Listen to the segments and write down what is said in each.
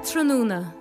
Ardtráthnóna.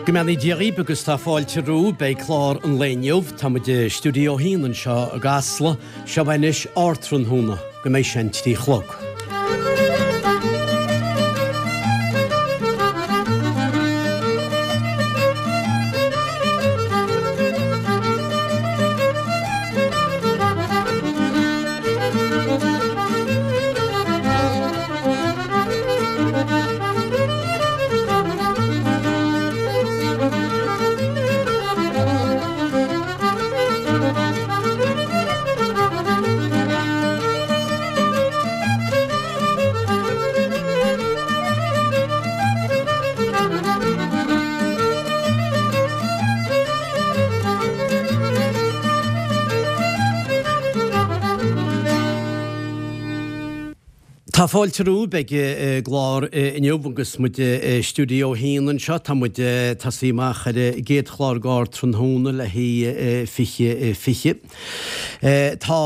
Go mbeannaí Dia dhaoibh agus tá fáilte romhaibh. Beidh clár an lae inniu. Tá muid i Stiúideo 1 anseo i gCasla. Seo anois Ardtráthnóna go mbeidh sé an 3 chlog. Tá fáilte romhaibh ag an gclár inniu agus muid i Stiúideo 1 anseo. Tá muid ag tosaí amach ar an gcéad chlár d'Ardtráthnóna le haghaidh 2020. Tá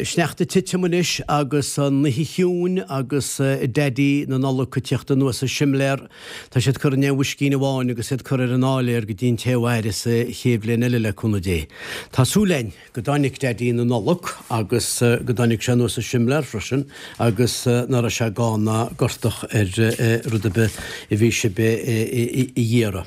sneachta ag titim anois agus an oíche chiúin agus Daidí na Nollag ag tíocht anuas an simléar. Tá siad curtha in aon bhoiscín amháin agus iad curtha ar an áiléar go dtí an té a mhairfeas an chéad bhliain eile le cúnamh Dé. Tá súil againn go dtáinig Daidí na Nollag agus go dtáinig sé anuas an simléar freisin agus ná raibh sé gann ná gortach ar rud ar bith a bhí sibh a iarraidh.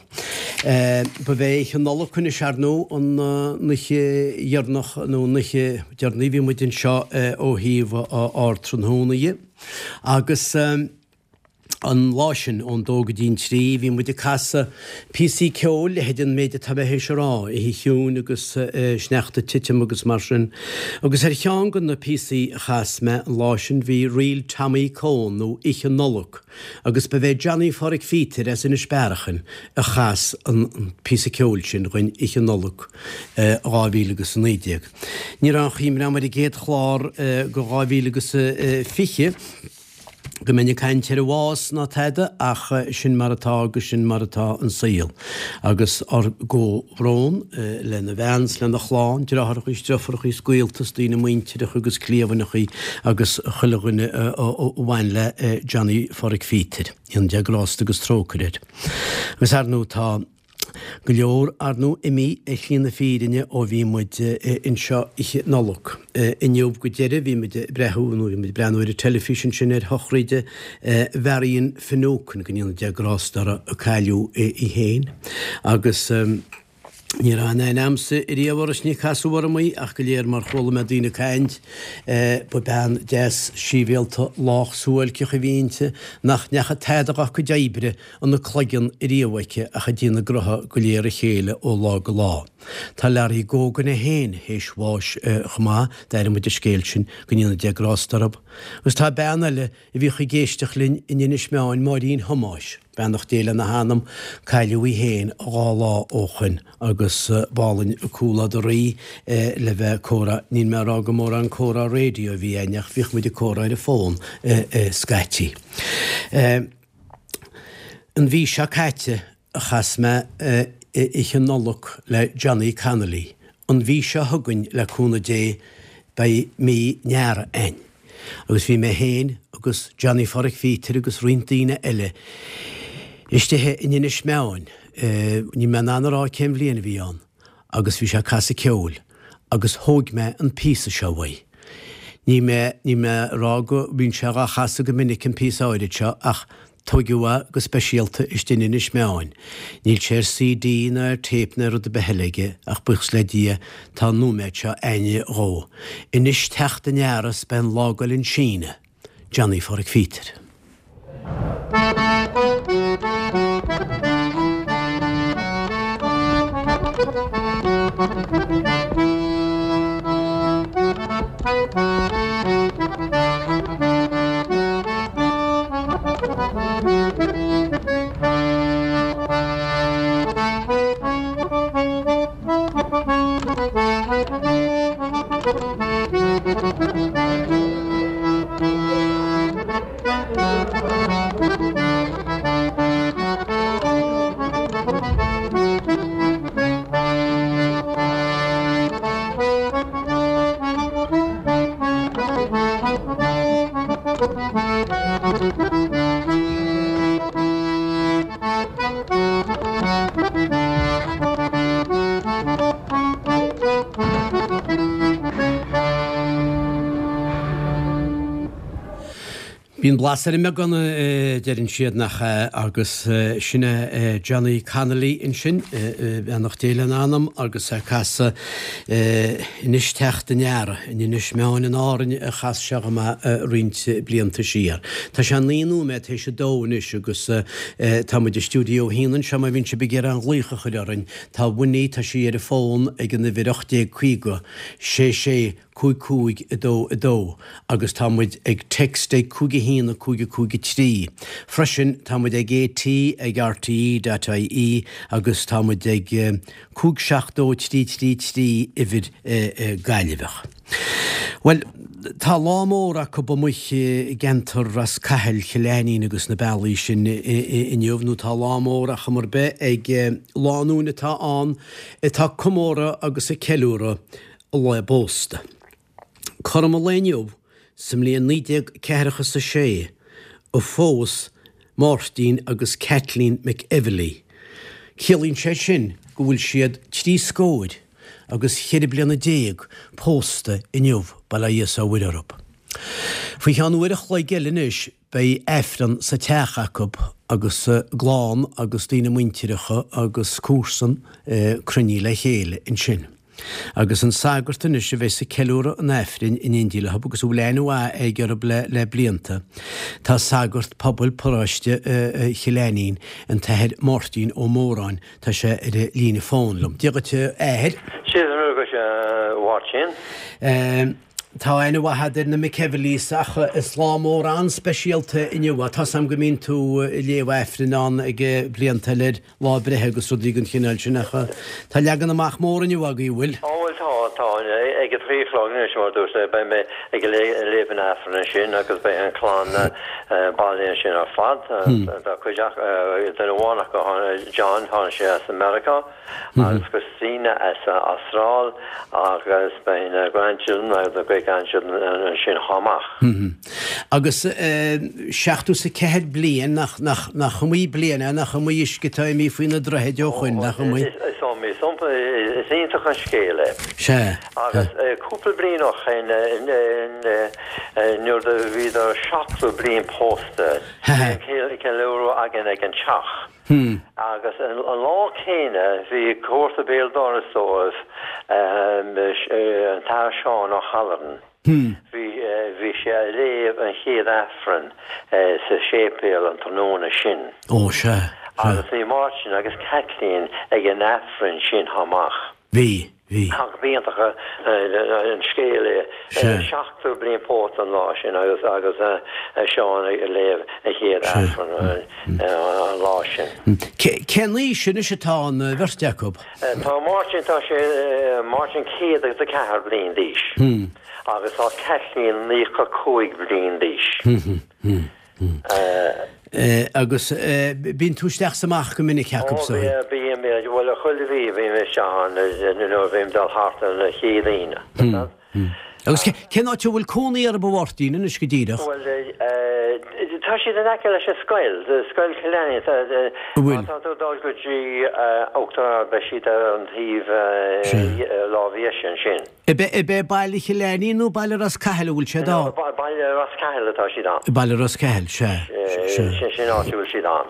Ba bhé Oíche Nollag anois ar ndóigh an oíche dheireanach nó an oíche deireanaí a bhí muid anseo ó thaobh Ardtráthnóna dhe agus An lá sin, ón dó go dtí an trí, bhí muid ag casadh píosaí ceoil, leithéid an méid atá mé théis a rá, oíche chiúin agus sneachta ag titim agus mar sin. Agus ar cheann de na píosaí a chas mé an lá sin bhí Ríl Tommy Coen nó Oíche Nollag agus ba bhé Johnny Pháraic Phíotair as Inis Bearachain a chas an píosa ceoil sin dhuinn Oíche Nollag 2019. Ní raibh aon chuimhne agam ar an gcéad chlár de 2020. go mbeinn ag caint ar an bhás ná tada ach sin mar atá agus sin mar atá an saol. Agus ár gcomhbhrón lena bhean 's lena chlann, deartháireachaí 's deirfiúrachaí 's gaolta 's daoine muintireacha agus cliamhaineachaí agus chuile dhuine a bhain le Johnny Pháraic Phíotair. Go ndéana Dia grásta agus trócaire air. Agus ar ndóigh tá. Go leor, ar ndóigh, imithe ar shlí na fírinne ó bhí muid anseo Oíche Nollag. Inniu go deireadh bhí muid ag breathú, nó bhí muid ag breathnú ar an teilifís ansin ar shochraid Mharion Finucane, go ndéana Dia grásta uirthi, a cailleadh í féin. Agus ní raibh aon aithne a'msa riamh uirthi is ní casadh orm í ach go léir mar chuala mé daoine ag caint, ba bean deas síbhialta lách suáilceach a bhí inti nach ndeachaigh tada dhá cuid oibre ina cloigeann riamh aici ach ag déanamh gnotha go léir a chéile ó lá go lá. Tá Larry Gogan é féin théis bháis chomh maith, d'airigh muid an scéal sin, go ndéana Dia grásta orthu. Agus tá bean eile a bhíodh ag éisteacht linn in Inis Meáin, Máirín Thomáis, beannacht Dé lena hanam, cailleadh í féin 2 lá ó shoin agus b'álainn an comhluadar í le bheith ag comhrá, níl mé ag rá go mórán comhrá raidió a bhí againn ach bhíodh muid ag comhrá ar an bhfón scaití. An mhí seo caite a chas mé Oíche Nollag le Johnny Connolly. An mhí seo chugainn, le cúnamh Dé, beidh mí an Earraigh a'inn. Agus bhí mé féin agus Johnny Pháraic Phíotair agus roinnt daoine eile istigh in Inis Meáin, níl mé in ann a rá cén bhliain a bhí ann, agus bhí sé ag casadh ceoil agus thóig mé an píosa seo uaidh. Níl mé, níl mé a rá go mbíonn sé dhá chasadh go minic an píosa áirid seo ach tóigeadh é go speisialta istigh in Inis Meáin. Níl sé ar CD ná ar tape ná rud ar bith eile aige ach buíochas le Dia tá an nóiméad seo a'inne dhó. Anois teacht an earraigh 's beidh an lá ag goil chun síneadh. Johnny Pháraic Phíotair. blas ar an mbeagán a deireann siad, nach ea? Agus sin é Johnny Connolly ansin, beannacht Dé lena anam, agus é ag casadh Anois Teacht an Earraigh, in Inis Meáin in Árainn a chas sé dhom é roinnt blianta siar. Tá sé 9 nóiméad théis a dó anois agus tá muid i Stiúideo 1 anseo má bhíonn sibh ag iarraidh aon ghlaoch a chur orainn. Tá Winnie, tá sí ar an bhfón ag an uimhir 1850 66 5 5 2 2 agus tá muid ag text ag 5 1 5 5 3. Freisin tá muid ag AT ag RTE dot ie agus tá muid ag 5 7 2 3 3 3 uimhir Gaillimheach. Bhuel, tá lá mór acu amuigh i gceantar Ros Cathail, Chill Ainnín agus na bealaí sin inniu, nó tá lá mór ar chuma ar bith ag lánúin atá ann atá ag comóradh agus ag ceiliúradh a lá pósta. Cothrom an lae inniu sa mbliain 1946 a phós Máirtín agus Kathleen McEvilly. Ciallaíonn sé sin go bhfuil siad trí scóir agus cheithre bliana pósta inniu, bail ó Dhia 's ó Mhuire orthu. Faoi cheann uair a chloig eile anois beidh Aifreann sa teach acu agus a gclann agus daoine muintireacha agus comharsan cruinnithe le chéile ansin. Agus an sagart anois a bheas ag ceiliúradh an Aifrinn in éindí leo agus a bhfuil aithne mhaith aige orthu le blianta, tá sagart pobail paróiste Chill Ainnín, an tAthair Máirtín Ó Móráin, tá sé ar an líne fóin liom. Dia dhuit a Athair. Dia dhuit a Mháirtín. Tá aithne mhaith agat ar na McEvillys ach is lá mór an-speisialta inniu é. Tá's a'm go mbíonn tú ag léamh Aifrinn ann ag blianta eile ar lá breithe agus rudaí den chineál sin ach tá leagan amach mór inniu agaibh, an bhfuil? Ó bhuel tá, tá. Ag a trí a chlog anois mar a dúirt mé beidh mé ag léamh an Aifrinn ansin agus beidh an chlann bailithe ansin ar fad. Tá cuid acu, duine amháin acu, John, tháinig sé as Meiriceá. agus Christina as an Astráil agus beidh na grandchildren agus na great grandchildren ansin chomh maith. Agus 74 bliain, nach, nach, nach iomaí bliain é, nach iomaí uisce atá imithe faoi na droichid ó shoin, nach iomaí? Is iomaí, is iomaí, is iontach an scéal é. Sea. Agus cúpla bliain ó shoin, nuair a bhíodar 70 bliain pósta, bhí an ceiliúradh againn ag an teach. Agus an lá céanna bhí comharsa béal dorais dóibh, an tAthair Seán O'Halloran. Bhí, bhí sé a léamh an chéad Aifreann sa séipéal an tráthnóna sin. Ó, sea, sea. Agus bhí Máirtín agus Kathleen ag an Aifreann sin chomh maith. Bhí, bhí. Ach b'iontach an scéal é. 70 bliain pósta an lá sin agus agus Seán ag léamh a chéad Aifreann an lá sin. Cén aois anois atá an bheirt acu? Tá Máirtín, tá sé, Máirtín 104 bliain d'aois agus tá Kathleen 95 bliain d'aois. Agus bíonn tú isteach 's amach go minic acu Ó, bím, bhuel, chuile mhí bím isteach ann nuair a bhím ag dul thart ar an chéad Aoine. Agus cén áit a bhfuil cónaí orthu a Mháirtín anois go díreach? Bhuel, tá siad in aice leis an scoil, Scoil Chill Ainnín. An bhfuil? Má tá tú ag dul go dtí Uachtar Ard beidh siad ar an taobh lámh dheise ansin. Ab é Baile Chill Ainnín nó Baile Ros Cathail a bhfuil siad ann? No, Baile Ros Cathail atá siad ann. Baile Ros Cathail, sea. Sin an áit a bhfuil siad ann.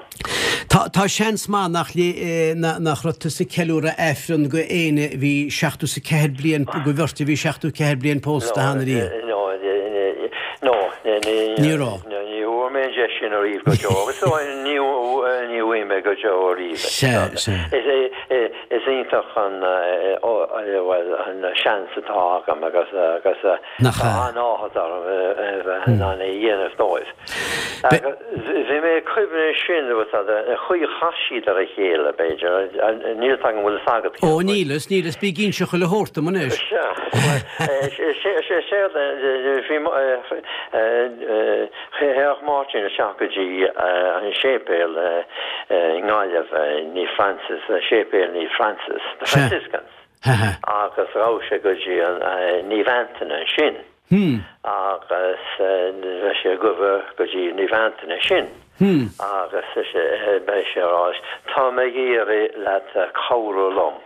Tá, tá seans maith nach, nach raibh tusa ag ceiliúradh Aifreann go éinne a bhí 74 bliain, go bheirt a bhí 74 bliain pósta cheana riamh. No, no, ní raibh. Ní bhfuair mé an deis sin ariamh go deo agus ní bhfaighidh mé go deo ariamh. Sea, sea. Is iontach an, bhuel, an seans atá agam agus agus tá an-áthas orm a bheith in ann é a dhéanamh dóibh. Bhí mé ag cuimhneamh ansin, an chaoi a chas siad ar a chéile, b'fhéidir, níl 'fhios agam an bhfuil 'fhios agat. Ó, níl 'fhios, níl 'fhios, bí ag inse chuile shórt dom anois. Sea, séard, bhí, Théadh Máirtín isteach go dtí an séipéal i nGaillimh, Naomh Francis, Séipéal Naomh Francis, the Franciscans, agus ghabh sé go dtí an Naomh Antaine ansin agus bheadh sé ag gabháil go dtí Naomh Antaine ansin agus beidh sé ag rá, tá mé ag iarraidh leat cabhrú liom.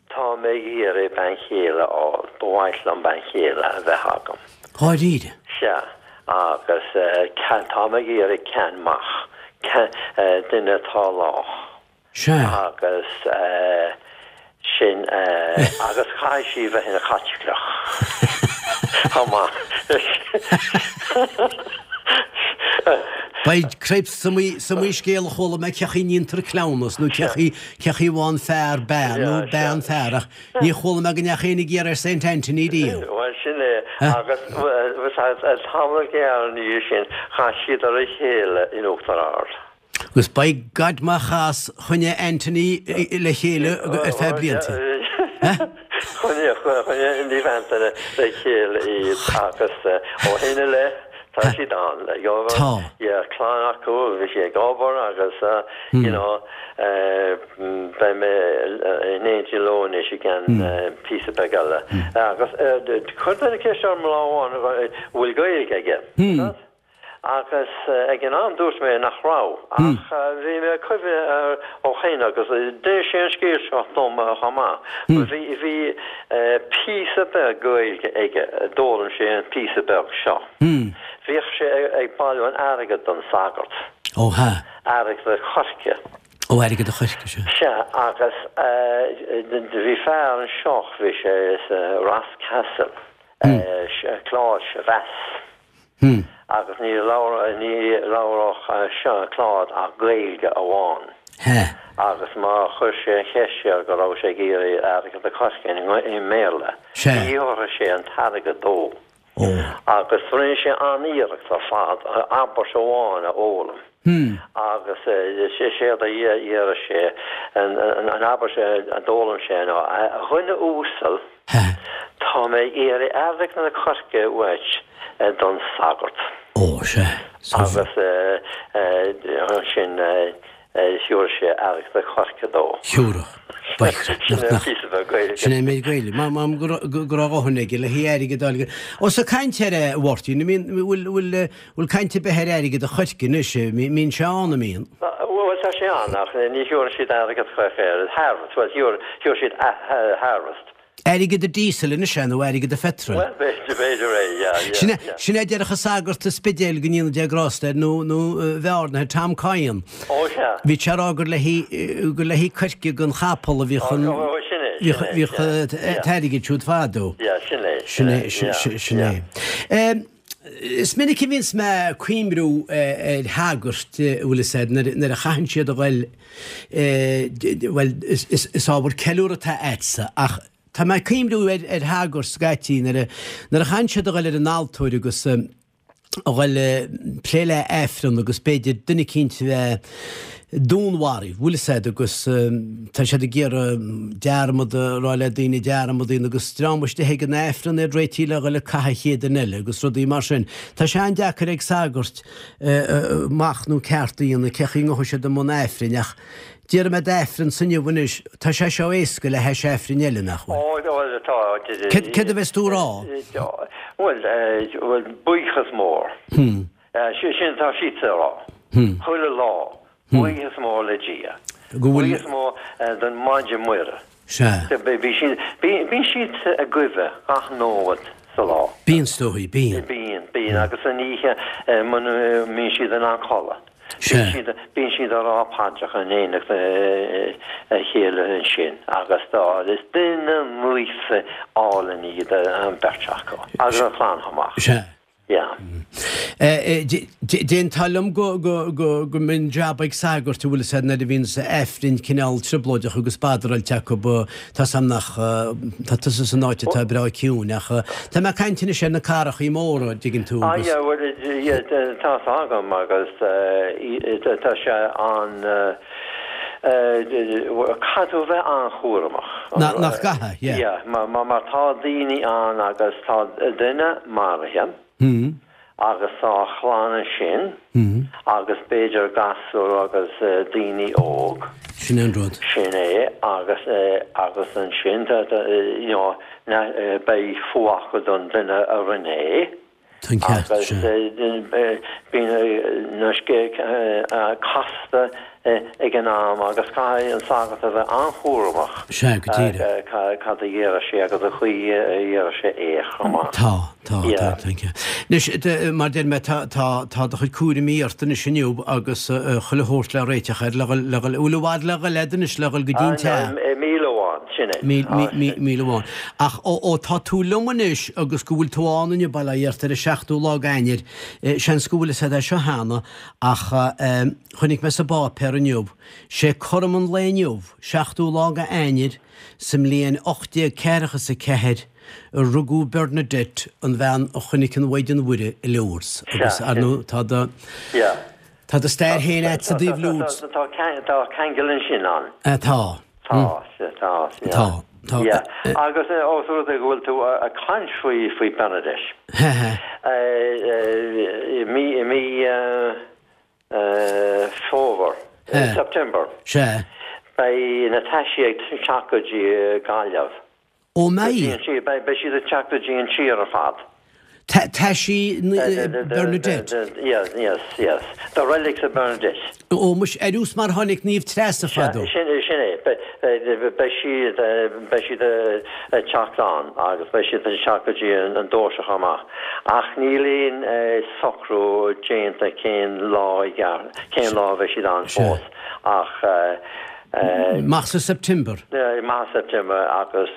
Tá mé ag iarraidh bean chéile a fháil. Ba mhaith liom bean chéile a bheith agam. Dháiríre? Sea. Agus tá mé ag iarraidh ceann maith, duine atá lách. Sea. Agus sin, agus caithfidh sí bheith ina Caitliceach chomh maith. Beidh cripes, is iomaí scéal a chuala mé cén chaoi a ndéantar cleamhnas nó cén chaoi, cén chaoi a bhfaigheann fear bean nó bean fear ach ní chuala mé go ndeachaigh éinne ag iarraidh ar Saint Anthony riamh. Bhuel sin é agus tamall gearr ina dhiaidh sin chas siad ar a chéile in Uachtar Ard. Agus by God má chas, choinnigh Anthony le chéile ar feadh blianta. Choinnigh, choinnigh Naomh Antaine le chéile iad agus ó shin i leith tá siad ann. Tá. Yeah, clann acu, bhí sí ag obair agus you know beidh mé in éindí leo anois i gceann píosa beag eile. Agus chuir duine ceist orm lá amháin an bhfuil Gaeilge aige. Agus ag an am dúirt mé nach raibh, ach bhí mé ag cuimhneamh air ó shin agus d'inis sé an scéal seo dom chomh maith. Bhí, bhí píosa beag Gaeilge aige, d'fhoghlaim sé an píosa beag seo. Bhíodh sé ag bailiú an airgid don sagart. Ó hea. Airgead an choirce. Ó airgead an choirce, sea. Sea, agus bhí fear anseo, bhí sé sa Ross Castle, Claude Chavasse. Agus ní labhródh seo Claude ach Gaeilge amháin. Agus má chuir sé an cheist air go raibh sé ag iarraidh airgead an choirce i mBéarla, ní thabharfadh sé an t-airgead dó. Agus rinne sé an-iarracht ar fad abairt amháin a fhoghlaim. Agus séard a deireadh sé, an abairt a d'fhoghlaim sé ná, A dhuine uasail, Tá mé ag iarraidh airgead an choirce uait don sagart. Ó, sea. Agus ansin thiúrfadh sé airgead an choirce dó. Thiúrfadh. Sin é an píosa beag Gaeilge. Sin é an méid Gaeilge. M'anam go raibh a dhóthain aige le haghaidh airgead a fháil. Ó, so caint ar a Mháirtín, bhfuil, bhfuil, Bhfuil caint ar bith ar airgead an choirce anois? Mbíonn sé ann, an mbíonn? Bhuel, tá sé ann, ach ní thiúrann siad airgead choirce air. Harvest, bhuel, thiúr siad harvest. Airgead an diesel anois é, nó airgead an phetrol? Bhuel, b'fhéidir, b'fhéidir é, yeah, yeah, Sin é, sin é a déarfadh an sagart sa Spidéal, go ndéana Dia grásta air, nó, nó Bhearna, Tom Coyne. Ó, sea. Bhí sé ag rá gur le haghaidh, gur le haghaidh coirce don chapall a bhíodh an, Ó, ó, sin é, sin é, bhíodh an t-airgead siúd fadó. Yeah, sin é, sin é, yeah, sin é. Yeah. Is minic a bhíonns mé ag cuimriú ar shagairt, an bhfuil fhios a'd, nuair a chaitheann siad a ghoil, bhuel, is ábhar ceiliúrtha atá a'dsa, ach tá mé ag cuimriú ar shagairt scaití nuair a chaitheann siad a ghoil ar an altóir agus a ghoil ag plé le Aifreann agus b'fhéidir duine eicínt a bheith dúnmharaithe, bhfuil fhios a'd, agus tá siad ag iarraidh dearmad a rá le daoine dearmad a dhéanamh agus dream istigh ag an Aifreann iad réitithe le dhul ag caitheamh an chéad duine eile agus rudaí mar sin. Tá sé an-deacair ag sagairt machnamh ceart a dhéanamh cé chaoi ngabhfaidh siad i mbun Aifrinn ach déarfaidh mé d'Aifreann inniu anois, tá sé seo éasca le hais Aifrinn eile, nach bhfuil? Ó, bhuel, tá. Céard a bheas tú a rá? Bhuel, bhuel, buíochas mór. Sin atá siadsan a rá. Chuile lá. Buíochas mór le Dia. Buíochas mór don Mhaighdean Muire. Sea. Bíonn siad ag guibhe gach nóiméad sa lá. Bíonn, is dóigh, bíonn. Bíonn, bíonn. Agus san oíche muna mbíonn siad in ann codladh. Sea. Bíonn siad ag rá paidreacha in éineacht a chéile ansin agus tá, is duine naofa álainn iad an bheirt acu. Agus an chlann chomh maith. Sea. Yeah. D'aontófá liom go mbíonn jab ag sagairt, an bhfuil fhios a'd, nuair a bhíonns Aifrinn cineál trioblóideach agus badaráilte acu, tá 's a'm nach, tá tusa san áit atá breá ciúin ach tá mé ag caint anois ar na cathrachaí móra, an dtuigeann tú, Ah agus. yeah, bhuel, yeah, tá 's agam agus tá sé an, Caithfidh tú a bheith an-chúramach. Nach gcaithfidh, yeah. Yeah, mar tá daoine ann agus tá duine maraithe agus tá a chlann ansin agus b'fhéidir gasúr agus daoine óg. Sin é an rud. Sin é agus agus ansin you know beidh fuath acu don duine a rinne é. Tá an ceart, Agus sea. bíonn na scéalta casta ag an am agus caithfidh an sagart a bheith an-chúramach Sea, go díreach. cad a dhéarfas sé agus an chaoi a dhéarfas sé é chomh maith. Tá, tá, tá, tá an ceart. Anois, mar deir mé, tá, tá, tá do chuid cúraimí ort anois inniu agus chuile shórt le réiteach air, le dhul, le dhul, bhfuil i bhfad le dhul agat anois le dhul go dtí an teach? Míle amháin. Sin é. Míle amháin. Ach ó tá tú liom anois agus go bhfuil tú ann inniu, bail ó Dhia ort, ar an seachtú lá d'Eanáir, seans go bhfuil fhios agat é seo cheana, ach chonaic mé sa bpáipéar inniu, sé cothrom an lae inniu, seachtú lá d'Eanáir, sa mbliain 1844, a rugadh Bernadette, an bhean a chonaic an Mhaighdean Mhuire i Lourdes. Agus, ar ndóigh, tá do, tá do stair féin agat i dtaobh Lourdes. Tá ceangal ansin ann. Tá. Tá, tá, yeah. Tá, tá. Yeah. Agus ós rud é go bhfuil tú ag caint faoi, faoi Bernadette. I mí, i mí Fómhair, September. Sea. Beidh na taisí ag teacht go dtí Gaillimh. Ó mbeidh? Beidh siad ag teacht go dtí an tír ar fad. Taisí Bernadette? Yes, yes, yes. The relics of Bernadette. Ó muis, ar nós mar tháinig Naomh Treasa fadó. Sin é. Beidh siad, beidh siad ag teacht ann agus beidh siad ag teacht go dtí an Doirse chomh maith. Ach níl aon socrú déanta cén lá i gceart, cén lá a bheidh siad ann fós. Ach. Amach sa September. Amach sa September agus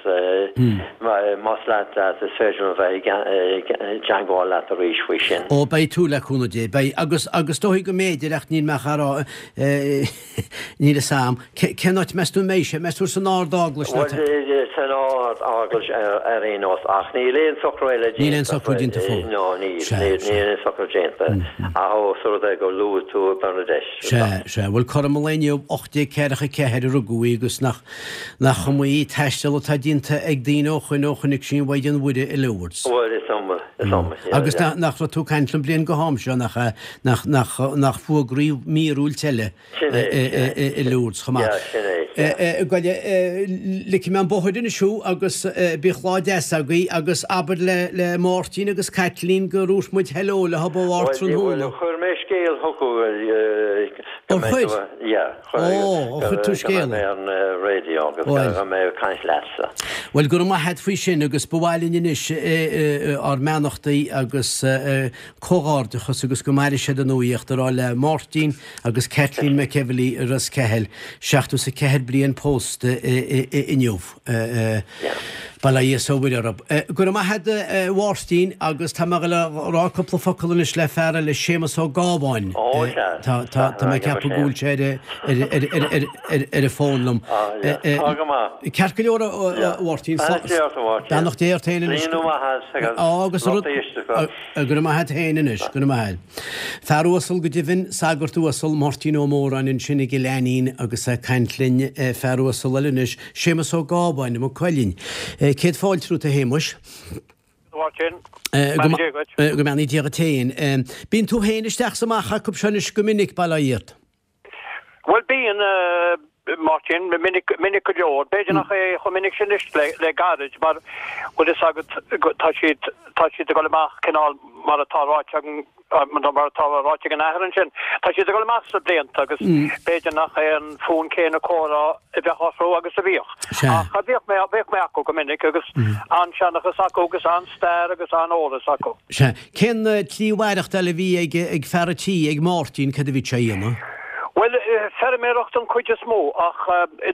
más leat leat is féidir liom a bheith i dteangmháil leat arís faoi sin. Ó beidh tú, le cúnamh Dé, beidh. Agus, agus dóigh go mb'fhéidir ach níl mé ach á rá, níl fhios a'm. Cén áit meas tú a mbeidh sé? Meas tú san Ard-Eaglais nó? Bhuel, san Ard-Eaglais ar aon nós ach níl aon socrú eile déanta. Níl aon socrú déanta fós. No, níl, níl aon socrú déanta. Ach ós rud é gur luaigh tú Bernadette. Sea, sea. Bhuel, cothrom an lae inniu, 1844 a rugadh í agus nach, nach iomaí taisteal atá déanta ag daoine ó shoin ó chonaic sí an Mhaighdean Mhuire i Lourdes. Bhuel, is iomaí, is iomaí, yeah, Agus yeah. nach, nach raibh tú ag caint liom bliain go ham seo, nach ea, nach, nach, nach fuagraíodh míorúilt eile Sin é, sin é. i Lourdes chomh maith. Yeah, sin é, yeah. Gabh i leith, ligfidh mé an bóthar anois thú agus bíodh lá deas agaibh agus abair le, le Máirtín agus Caitlín gur dhúirt muid hello leo ó Bharr tráthnóna. Bhuel, chuir mé scéal chucu go Ó mbeidh chuir? tú, yeah, chuir, Ó, ó chuir tú go scéal. mbeidh mé ar an raidió agus Bhuel. go mbeidh mé ag caint leatsa. Bhuel, go raibh maith a't faoi sin agus ba mhaith linn anois ár mbeannachtaí agus comhghairdeachas agus go maire siad i nuaíocht a rá le Máirtín agus Kathleen McEvilly i Ros Ceathail, 74 bliain pósta inniu. Bail ó Dhia is ó Mhuire orthu. Go raibh maith a't a Mháirtín agus tá mé ag dul a rá cúpla focal anois le fear eile, Séamus Ó Gábháin. Ó sea. Tá mé ag ceapadh go bhfuil sé ar an bhfón liom. Tá go maith. Ceart go leor a Mháirtín. Beannacht Dé ort a Mháirtín. Beannacht Dé ort féin anois. Líonadh maith as agus lucht éisteachta. Go raibh maith a't féin anois, go raibh maith a't. Fear uasal go deimhin, sagart uasal, Máirtín Ó Móráin ansin i gCill Ainnín agus é ag caint linn, fear uasal eile anois, Séamus Ó Gábháin, i Maigh Cuilinn. Céad fáilte romhat a Shéamuis. A Mháirtín, beannacht Dé dhuit. Go mbeannaí Dia dhuit féin. Bíonn tú féin isteach 's amach acu seo anois go minic, bail ó Dhia ort. Bhuel, bíonn, a Mháirtín, minic, minic go leor. B'fhéidir nach é chomh minic sin anois le, le gairid mar, bhfuil fhios agat, tá siad, tá siad ag dul amach cineál mar atá ráite agam, mar atá ráite ag an athair ansin, tá siad ag dul amach sna blianta agus b'fhéidir nach é an fonn céanna comhrá a bheadh orthu agus a bhíodh. Ach bhíodh mé, bhíodh mé acu go minic agus an-seanchas acu agus an-stair agus an-eolas acu. Sea. Cén tslí mhaireachtáil a bhí ag ag fear an tí, ag Máirtín, cad a bhí sé a dhéanamh? Bhuel, feirmeoireacht an chuid is mó ach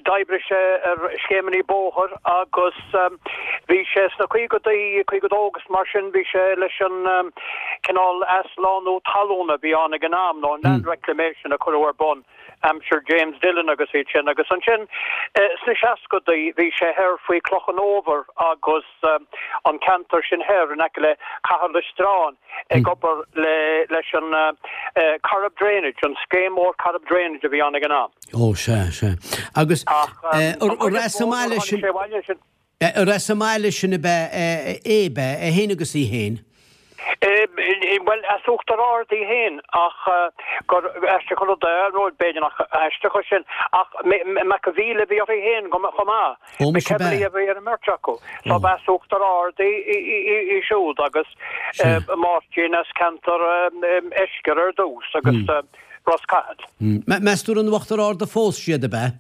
d'oibrigh sé ar scéimeanna bóthair agus bhí sé sna caogadaí, 52 agus mar sin, bhí sé leis an cineál athshlánú talún a bhí ann ag an am, nó an land reclamation a cuireadh ar bun aimsir James Dillon agus iad sin. Agus ansin sna seascadaí bhí sé thoir faoi Cloch an Fhómhair agus. an ceantar sin thoir in aice le Caherlistrane ag obair le leis an Corrib Drainage, an scéim mhór Corrib Drainage a bhí ann ag an am. Ó sea, sea. Agus ar as an mbaile sin, ar as an mbaile sin ab ea é, ab ea, é féin agus í féin? Bhuel, as Uachtar Ard í féin ach gur aisteach an rud é, nó b'fhéidir nach aisteach é sin, ach McAveal a bhí uirthi féin chomh maith. McEvilly a bhí ar an mbeirt acu. So ba as Uachtar Ard í siúd agus Máirtín as ceantar Eiscir ar dtús agus Ros Cathail. Meas tú ar in Uachtar Ard a phós siad, ab ea?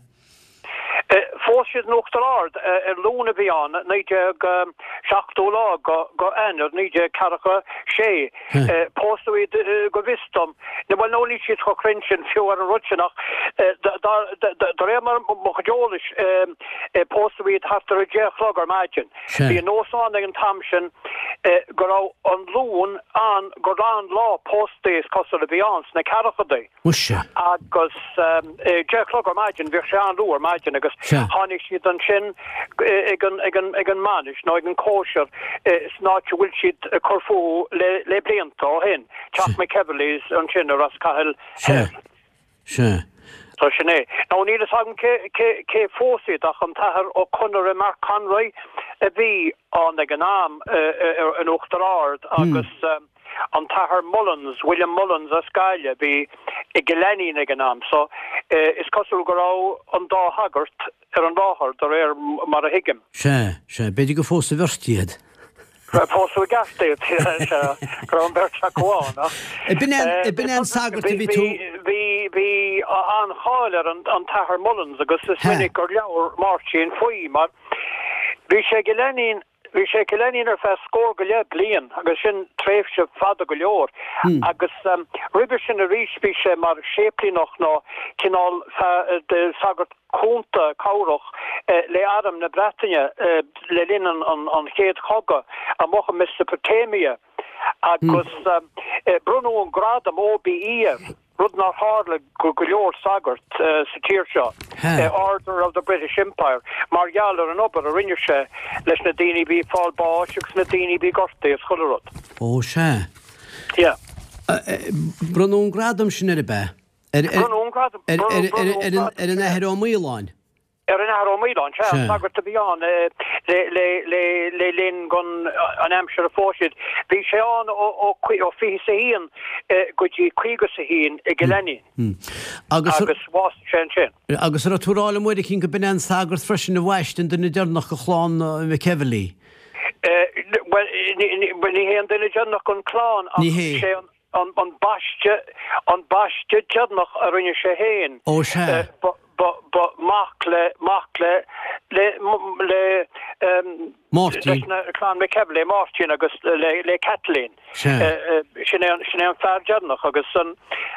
Phós siad in Uachtar Ard ar Luan a bhí ann, 1970 lá go Eanáir 1946. Pósadh iad go bhfios dom, bhuel nó níl siad chomh cruinn sin fiú ar an rud sin ach de réir mar mo chuid eolais pósadh iad thart ar a deich a chlog ar maidin. Bhí an nós ann ag an t-am sin go raibh an Luan ann gur an lá póstaí is cosúil a bhí ann sna ceathrachaidí. Muise. Agus deich a chlog ar maidin, bhíodh sé an-luath ar maidin agus tháinig siad ansin ag an, ag an, ag an mbainis nó ag an cóisir san áit a bhfuil siad ag cur fúthu le, le blianta ó shin, Teach McEvilly's ansin i Ros Cathail Thoir. Sea. So sin é. Now níl fhios agam cé, cé, cé phós iad ach an tAthair Ó Conaire, Mark Conroy a bhí ann ag an am in Uachtar Ard agus, An tAthair Mullins, William Mullins as Gaillimh, a bhí i gCill Ainnín ag an am so is cosúil go raibh an dá shagart ar an láthair, de réir mar a thuigim. Sea, sea, b'fhéidir gur phós an bheirt iad. Pósadh i gceart iad, sea, go raibh an bheirt acu ann, ach. B'in é, b'in é an sagart a bhí tú. Bhí, bhí an-cháil ar an tAthair Mullins agus is minic gur labhair Máirtín faoi mar bhí sé i gCill Ainnín, Bhí sé i gCill Ainnín ar feadh scór go leith bliain agus sin tréimhse fada go leor. Agus roimhe sin arís bhí sé mar séiplíneach nó cineál de shagart cúnta, cabhrach le Arm na Breataine le linn an Chéad Chogadh amuigh i Mesopotamia agus bronnadh an gradam OBE air. rud nár tharla go go leor sagart sa tír seo, Order of the British Empire, mar gheall ar an obair a rinne sé leis na daoine a bhí ag fáil báis agus na daoine a bhí gortaithe is chuile rud. Ó, sea. Yeah. Bronnadh an gradam sin air, ab ea? Bronnadh an gradam. Ar an Athair Ó Maoláin? Ar an Athair Ó Maoláin, sea, an sagart a bhí ann le linn gon an aimsir a phós siad. Bhí sé ann ó 21 go dtí 51 i gCill Ainnín agus bhásaigh sé ansin. Agus an raibh tú ag rá liom uair eicínt go b'in é an sagart freisin a bhaist an duine deireanach de chlann McEvilly? Bhuel, ní hé an duine deireanach gon chlann ach sé an An baisteadh, an baisteadh deireanach a rinne sé féin. Ó sea. Ba, ba, ba mac le, mac le, le, le, Máirtín. leis na clann McEvilly, Máirtín agus le, le Kathleen. Sea. Sin é an, sin é an fear deireanach agus an,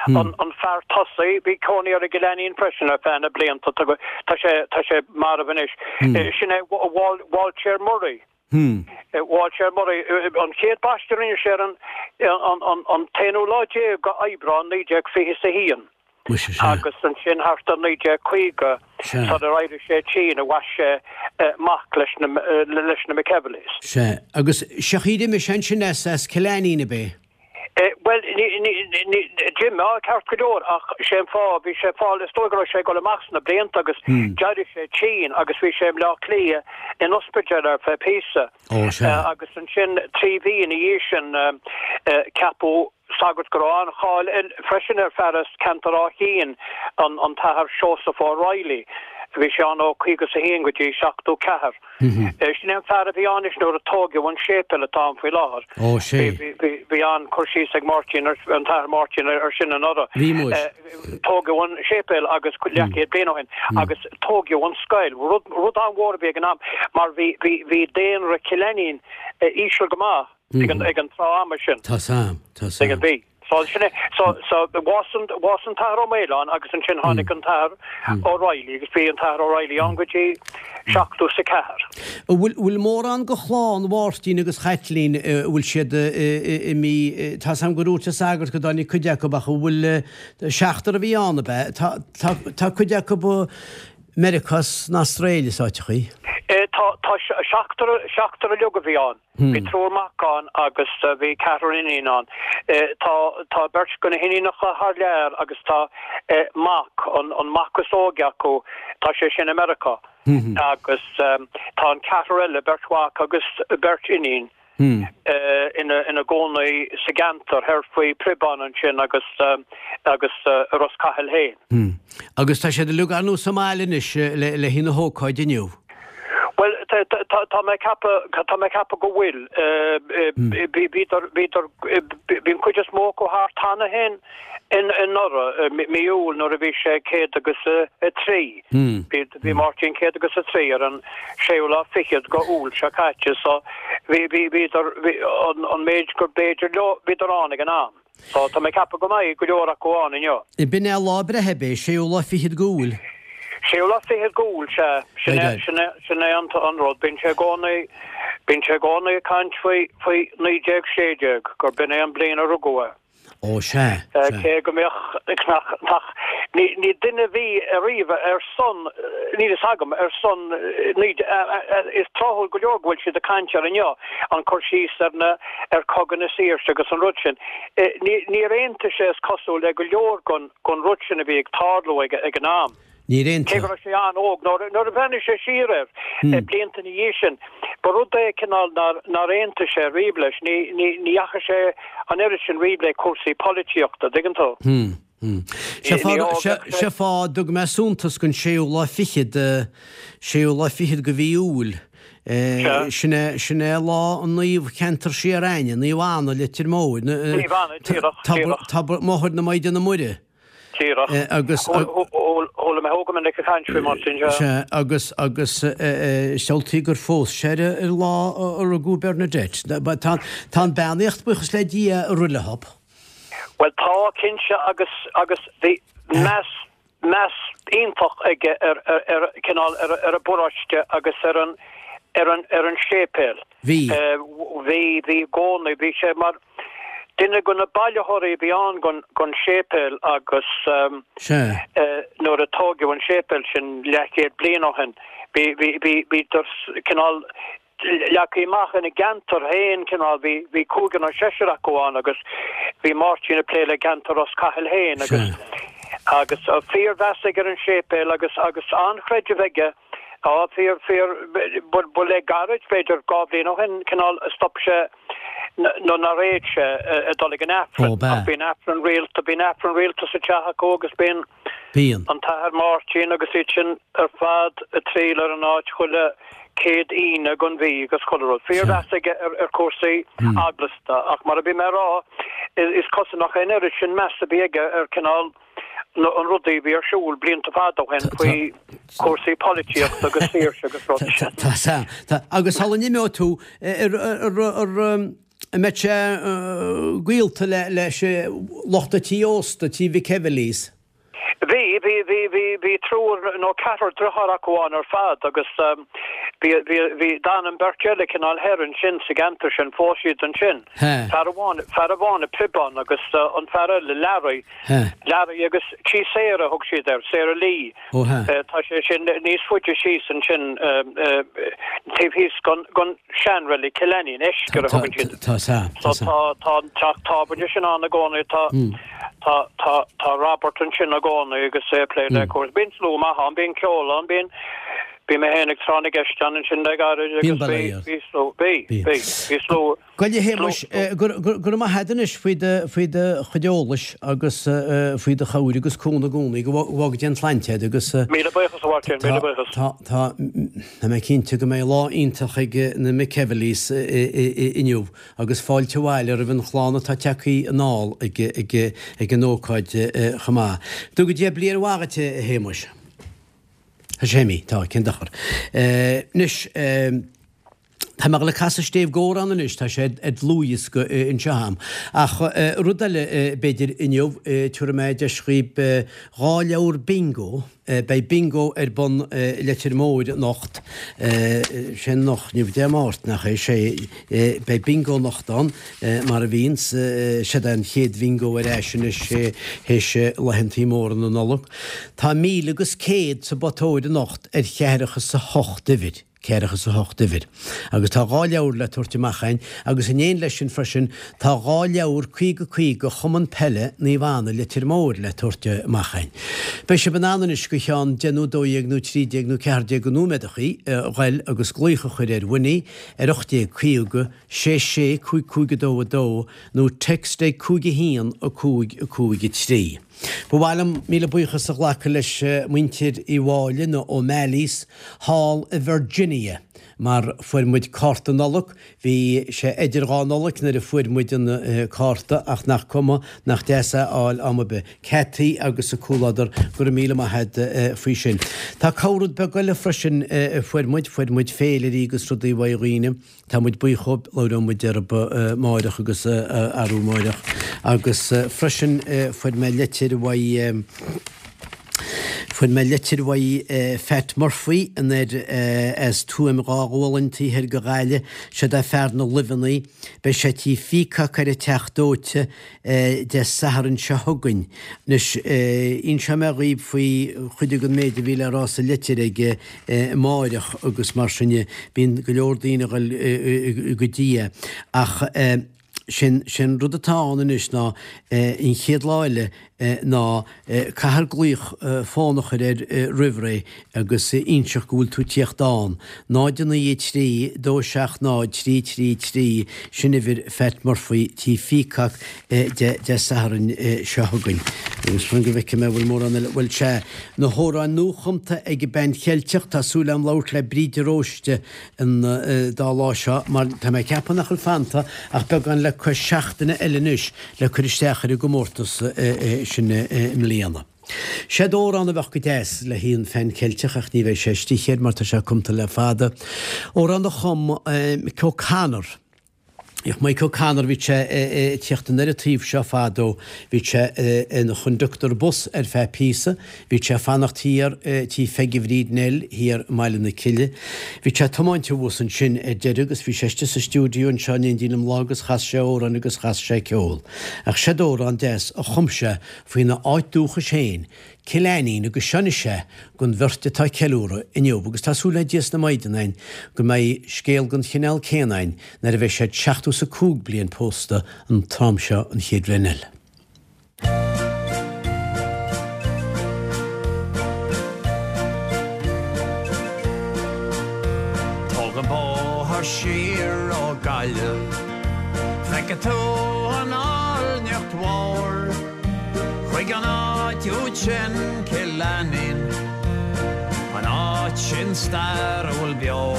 an, an fear tosaigh, bhí cónaí air i gCill Ainnín freisin ar feadh na blianta, tá, tá sé, tá sé marbh anois. Sin é Wal, Walter Murray. Walter Murray, an chéad baisteadh a rinne sé ar an t-aonú lá déag de Aibreán 1921 agus ansin thart ar 1950 sular éirigh sé tinn a bhaist sé mac leis na McEvillys. Sea, agus sé an chaoi ar imigh sé ansin as Cill Ainnín, ab é? Bhuel, d'imigh, ceart go leor, ach sé an fáth, bhí sé ag fáil, is dóigh go raibh sé ag dul amach sna blianta agus d'éirigh sé tinn agus bhí sé i mBleá Cliath in ospidéal ar feadh píosa. Ó, sea. Agus ansin, 3 mhí ina dhiaidh sin, ceapadh sagart go raibh an-cháil air freisin ar fear as ceantar Áth Chinn, an tAthair Seosamh O'Reilly. Bhí sé ann ó 51 go dtí 74. Sin é an fear a bhí ann anois nuair a tóigeadh an séipéal atá ann faoi láthair. Ó, sé. Bhí an-cur síos ag Máirtín, an tAthair Máirtín ar sin anuraidh. Bhí muis. Tóigeadh an séipéal agus leathchéad bliain ó shin agus tóigeadh an scoil, rud, rud an-mhór a bhí ag an am mar bhí, bhí, bhí daonra Chill Ainnín íseal go maith ag an, ag an tráth ama sin. Tá's a'm, tá's a'm. Bhí. So sin é, so, so bhásaigh an, bhásaigh an tAthair Ó Maoláin agus ansin tháinig an tAthair O'Reilly agus bhí an tAthair O'Reilly ann go dtí 74. An bhfuil, bhfuil mórán de chlann Mháirtín agus Chaitlín, an bhfuil siad imithe, tá's a'm gur dhúirt an sagart go dtáinig cuid acu ach an bhfuil, seachtar a bhí ann ab ea? Tá, tá, tá cuid acu i Meiriceá 's san Astráil is áiteachaí. Tá, tá seachtar, seachtar uilig a bhí ann. Bhí triúr mac ann agus bhí ceathrar iníon ann. Tá tá beirt de na hiníonacha thar lear agus tá mac, an mac is óige acu, tá sé sin i Meiriceá. Agus tá an ceathrar eile, beirt mhac agus beirt iníon. Ina gcónaí sa gceantar thoir faoi Priobán ansin agus agus i Ros Cathail féin. Agus tá siad uilig ar ndóigh sa mbaile anois le haghaidh na hócáide inniu. Bhuel, tá mé ag ceapadh, tá mé ag ceapadh go bhfuil. Bhíodar, bhíodar, bhí an chuid is mó acu thart cheana féin anuraidh, mí Iúil nuair a bhí sé 103. Bhí Máirtín 103 ar an séú lá fichead go Iúil seo caite so bhí, bhí, bhíodar, bhí, an, an méid gur b'fhéidir leo, bhíodar ann ag an am. So tá mé ag ceapadh go mbeidh go leor acu ann inniu. B'in é lá a breithe, ab é? Séú lá fichead go Iúil? Séú lá fichead go Iúil, sea. Sin é, sin é, sin é an, an rud. Bíonn sé i gcónaí, bíonn sé i gcónaí ag caint faoi, faoi 1916, gur b'in é an bliain a rugadh é. Ó, sea, sea. Cé go mbeadh, nach, nach, ní, ní duine a bhí ariamh ar son, níl fhios agam, ar son, ní, is tráthúil go leor go bhfuil siad ag caint air inniu, an cur síos ar na, ar Chogadh na Saoirse agus an rud sin. Ní, níor aontaigh sé is cosúil le go leor gon, gon rud sin a bhí ag tarlú ag, ag an am. Níor aontaigh. Cé go raibh sé an-óg, nuair a bhreathnaigh sé siar air, blianta ina dhiaidh sin, ba rud é cineál nár aontaigh sé riamh leis. Ní dheachaigh sé an oiread sin riamh le cúrsaí polaitíochta, dtuigeann tú. Sé fáth a dtug mé suntas don séú lá fichead, séú lá fichead de mhí Iúil. Sin é, sin é lá an naomh cheantar siar a'inne, Naomh Anna, Leitir Móir. Naomh Anna, díreach, díreach. Tobar Máthair na Maighdine Muire. Díreach. Agus. Chuala mé thú go minic ag caint faoi, Máirtín, sea. Sea, agus, agus samhlaigh gur phós sé ar an lá a rugadh Bernadette. Tá, tá an beannaíocht, buíochas le Dia, ag rith leob. Bhuel, tá, cinnte, agus, agus bhí meas, meas iontach aige ar, ar, ar, cineál, ar, ar an bparóiste agus ar an, ar an, ar an séipéal. Bhí. Bhí, bhí i gcónaí, bhí sé mar duine de na bailitheoirí a bhí ann gon séipéal agus nuair a tóigeadh an séipéal sin leathchéad bliain ó shin, bhí, bhí, bhí, bhíodar cineál leagtha amach ina gceantar féin, cineál, bhí, bhí cúigear nó seisear acu ann agus bhí Máirtín ag plé le ceantar Ros Cathail féin agus, agus fíormheas aige ar an séipéal agus, agus an-chreideamh aige. Á, fíor, fíor, ba le gairid, b'fhéidir 2 bhliain ó shin, cineál, a stop sé, nó nár fhéad sé, a dul ag an Aifreann. Ó, b'ea. Ach bíonn Aifreann rialta, bíonn Aifreann rialta sa teach acu agus bíonn Bíonn. an tAthair Máirtín agus iad sin ar fad ag triall ar an áit chuile chéad Aoine gon mhí agus chuile rud. Fíormheas aige ar, ar chúrsaí eaglasta ach mar a bhí mé a rá, is cosúil nach é an oiread sin meas a bhí aige ar cineál, an rudaí a bhí ar siúl blianta fada ó shin faoi chúrsaí polaitíochta agus saoirse agus rud. Tá, tá, tá. Agus sula n-imeoidh tú, an mbeidh sé gaolta leis lucht an tí ósta, tí McEvilly's? Bhí, bhí, bhí, bhí, bhí triúr nó ceathrar driotháir acu ann ar fad agus bhí, bhí, bhí, d'fhan an bheirt eile cineál thoir ansin sa gceantar sin, phós siad ansin. Fear amháin, fear amháin i Priobán agus an fear eile, Larry, Larry agus Tí Sarah a thug siad air, Sarah Lee. Ó hea. Tá sé sin níos faide síos ansin, taobh thíos gon seanreilig Killanny, an Eiscir a thugann siad. Tá, tá, tá. So tá, tá an teach tábhairne sin ann i gcónaí, tá, tá, tá, tá Robert ansin i gcónaí agus é ag plé le cúrsaí. Bíonn slua maith ann, bíonn ceol ann, bíonn, bhí mé féin ag tráth na gceist ann ansin le gairid agus bhí, bhí slua, bhí, bhí, bhí slua. Bhuel a Shéamais, go raibh maith agat anois faoi do faoi do chuid eolais agus faoi do chabhair agus cúnamh i gcónaí. Go bhfága Dia an tsláinte agat agus. Míle buíochas a Mháirtín, míle buíochas. Tá, tá, tá mé cinnte go mbeidh lá iontach ag na McEvilly's inniu agus fáilte abhaile roimh an chlann atá tagtha anall ag ag ag an ócáid chomh maith. Go dtuga Dia bliain mhaith dhuit a Shéamais. A Shéimí, tá, cén dochar. Anois. Tá mé ag dul ag casadh stéibh dh'amhrán anois, tá sé ar dlúthdhiosca anseo a'm. Ach rud eile, b'fhéidir, inniu, tabharfaidh mé deis dhaoib 2 leabhar bingo, beidh bingo ar bun i Leitir Móir anocht, sé anocht, inniu Dé Máirt, nach é? Sé, beidh bingo anocht ann, mar a bhíonns, seod é an chéad bhingo ar ais anois théis laethantaí móra na Nollag. Tá míle agus céad sa bpotóir anocht ar cheathracha 's a hocht uimhir. Ceathracha is a hocht uimhir. Agus tá 2 leabhar le tabhairt amach a'inn agus in éineacht leis sin freisin tá 2 leabhar 50 50 Chumann Peile Naomh Anna Leitir Móir le tabhairt amach a'inn. Beidh sibh in ann anois go cheann deich nó 12 nó 13 nó 14 de nóiméadachaí a ghoil agus glaoch a chur ar Winnie ar 1850 6 6 5 5 2 2 nó text ag 5 1 5 5 3. Ba mhaith liom míle buíochas a ghlacadh leis muintir Uí Mháille, na O'Malleys, thall i Virginia, mar fuair muid cárta Nollag, bhí sé idir dhá Nollaig nuair a fuair muid an cárta ach nach cuma, nach deas é a fháil am ar bith. Cathy agus a comhluadar, go raibh míle maith a't faoi sin. Tá corr-rud beag eile freisin a fuair muid, fuair muid féilirí agus rudaí uaidh dhaoine. Tá muid buíoch dhóibh, labhróidh muid orthub amáireach agus arú amáireach. Agus freisin fuair mé leitir uaidh, fuair mé leitir uaidh Phat Murphy anoir as Tuaim Dhá Ghualainn taobh thoir de Ghaillimh. Seod é fear na luibheanna. Beidh sé tí Phíocac ar an Teach Dóite. Dé Sathairn seo chugainn. Anois, inseoidh mé dhaoibh faoi chuid den méid a bhí le rá sa litir aige amáireach agus mar sin de. Bíonn go leor daoine a dhul go dtí é. Ach sé'n, sé'n rud atá ann anois ná an chéad lá eile ná caithfear glaoch fón a chur air roimh ré agus inseacht go bhfuil tú tíocht ann. 0 9 3 2 7 0 3 3 3, sin uimhir Phat Murphy tí Phíocac Dé Sathairn seo chugainn. Agus fan go bhfeicfidh mé an bhfuil mórán eile, bhuel sea, na hamhráin nuachumtha ag an Band Cheilteach, tá súil agam labhairt le Bríd de Róiste an dá lá seo mar tá mé ag ceapadh nach bhfuil fanta ach beagán le cois seachtaine eile anois le cur isteach ar an gcomórtas sin i mbliana. Seod amhrán a bheadh go deas le haghaidh an Phean Cheilteach ach ní bheidh sé istigh air mar tá sé cumtha le fada. Amhrán a chum Mick O'Connor. Bhíodh Mike O'Connor, bhí sé ag tíocht anoir an taobh seo fadó, bhí sé ina chonductor bus ar feadh píosa, bhí sé ag fanacht thiar tí Pheigí Bhríd Nell thiar i mBaile na Cille. Bhí sé ag tiomáint abhus ansin ar deireadh agus bhí sé istigh sa stiúideo anseo in éindí liom lá agus chas sé amhráin agus chas sé ceol. Ach seod amhrán deas a chum sé faoina áit dúchais féin, Cill Ainnín agus seo anois é don bheirt atá ag ceiliúradh inniu agus tá súil le Dia 's na Maighdean a'inn go mbeidh scéal den chineál céanna a'inn nuair a bheidh siad 75 bliain pósta an t-am seo an chéad bhliain eile. Tóg an bóthar siar ó Gaillimh, feicfidh tú an áilneacht mhór. Chuig an áit úd sin, Cill Ainnín, an áit sin stairiúil beo.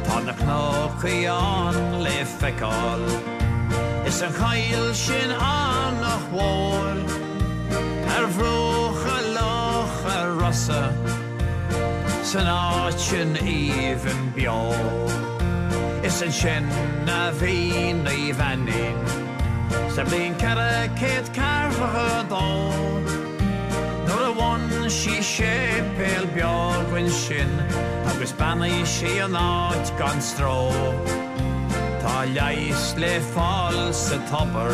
Tá na cnocaí ann le feiceáil, is an choill sin Eanach Mhór. Ar bhruacha Locha Rosa, san áit sin aoibhinn beo. Is ansin a bhí Naomh Ainnín. Sa bhliain 442, nuair a bhain sí séipéal beag ansin agus beannaigh sí an áit gan stró. Tá leigheas le fáil sa tobar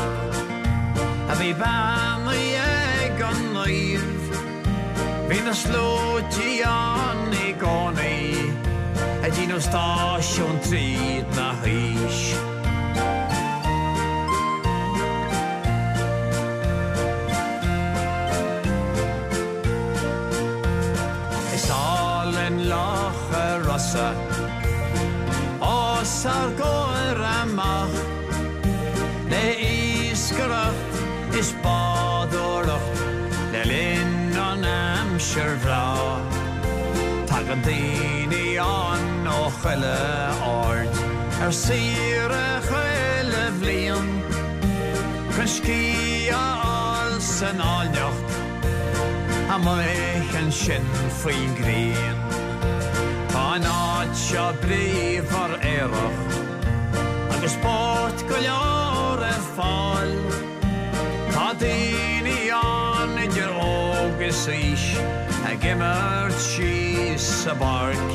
a bhí beannaithe ag an naomh. Bhí na sluaití ann i gcónaí ag déanamh stáisiún tríd na haois. Is álainn Loch a' Rosa os ár gcomhair amach le iascaireacht is bádóireacht le linn an aimsir bhreá. Tagann daoine ann ó chuile aird ar saoire chuile bhliain chun scíth a fháil san áilneacht amuigh ansin faoin ngrian. Tá an áit seo bríomhar aerach agus spórt go leor ar fáil. Tá daoine ann idir óg is aois ag imirt síos sa bpáirc.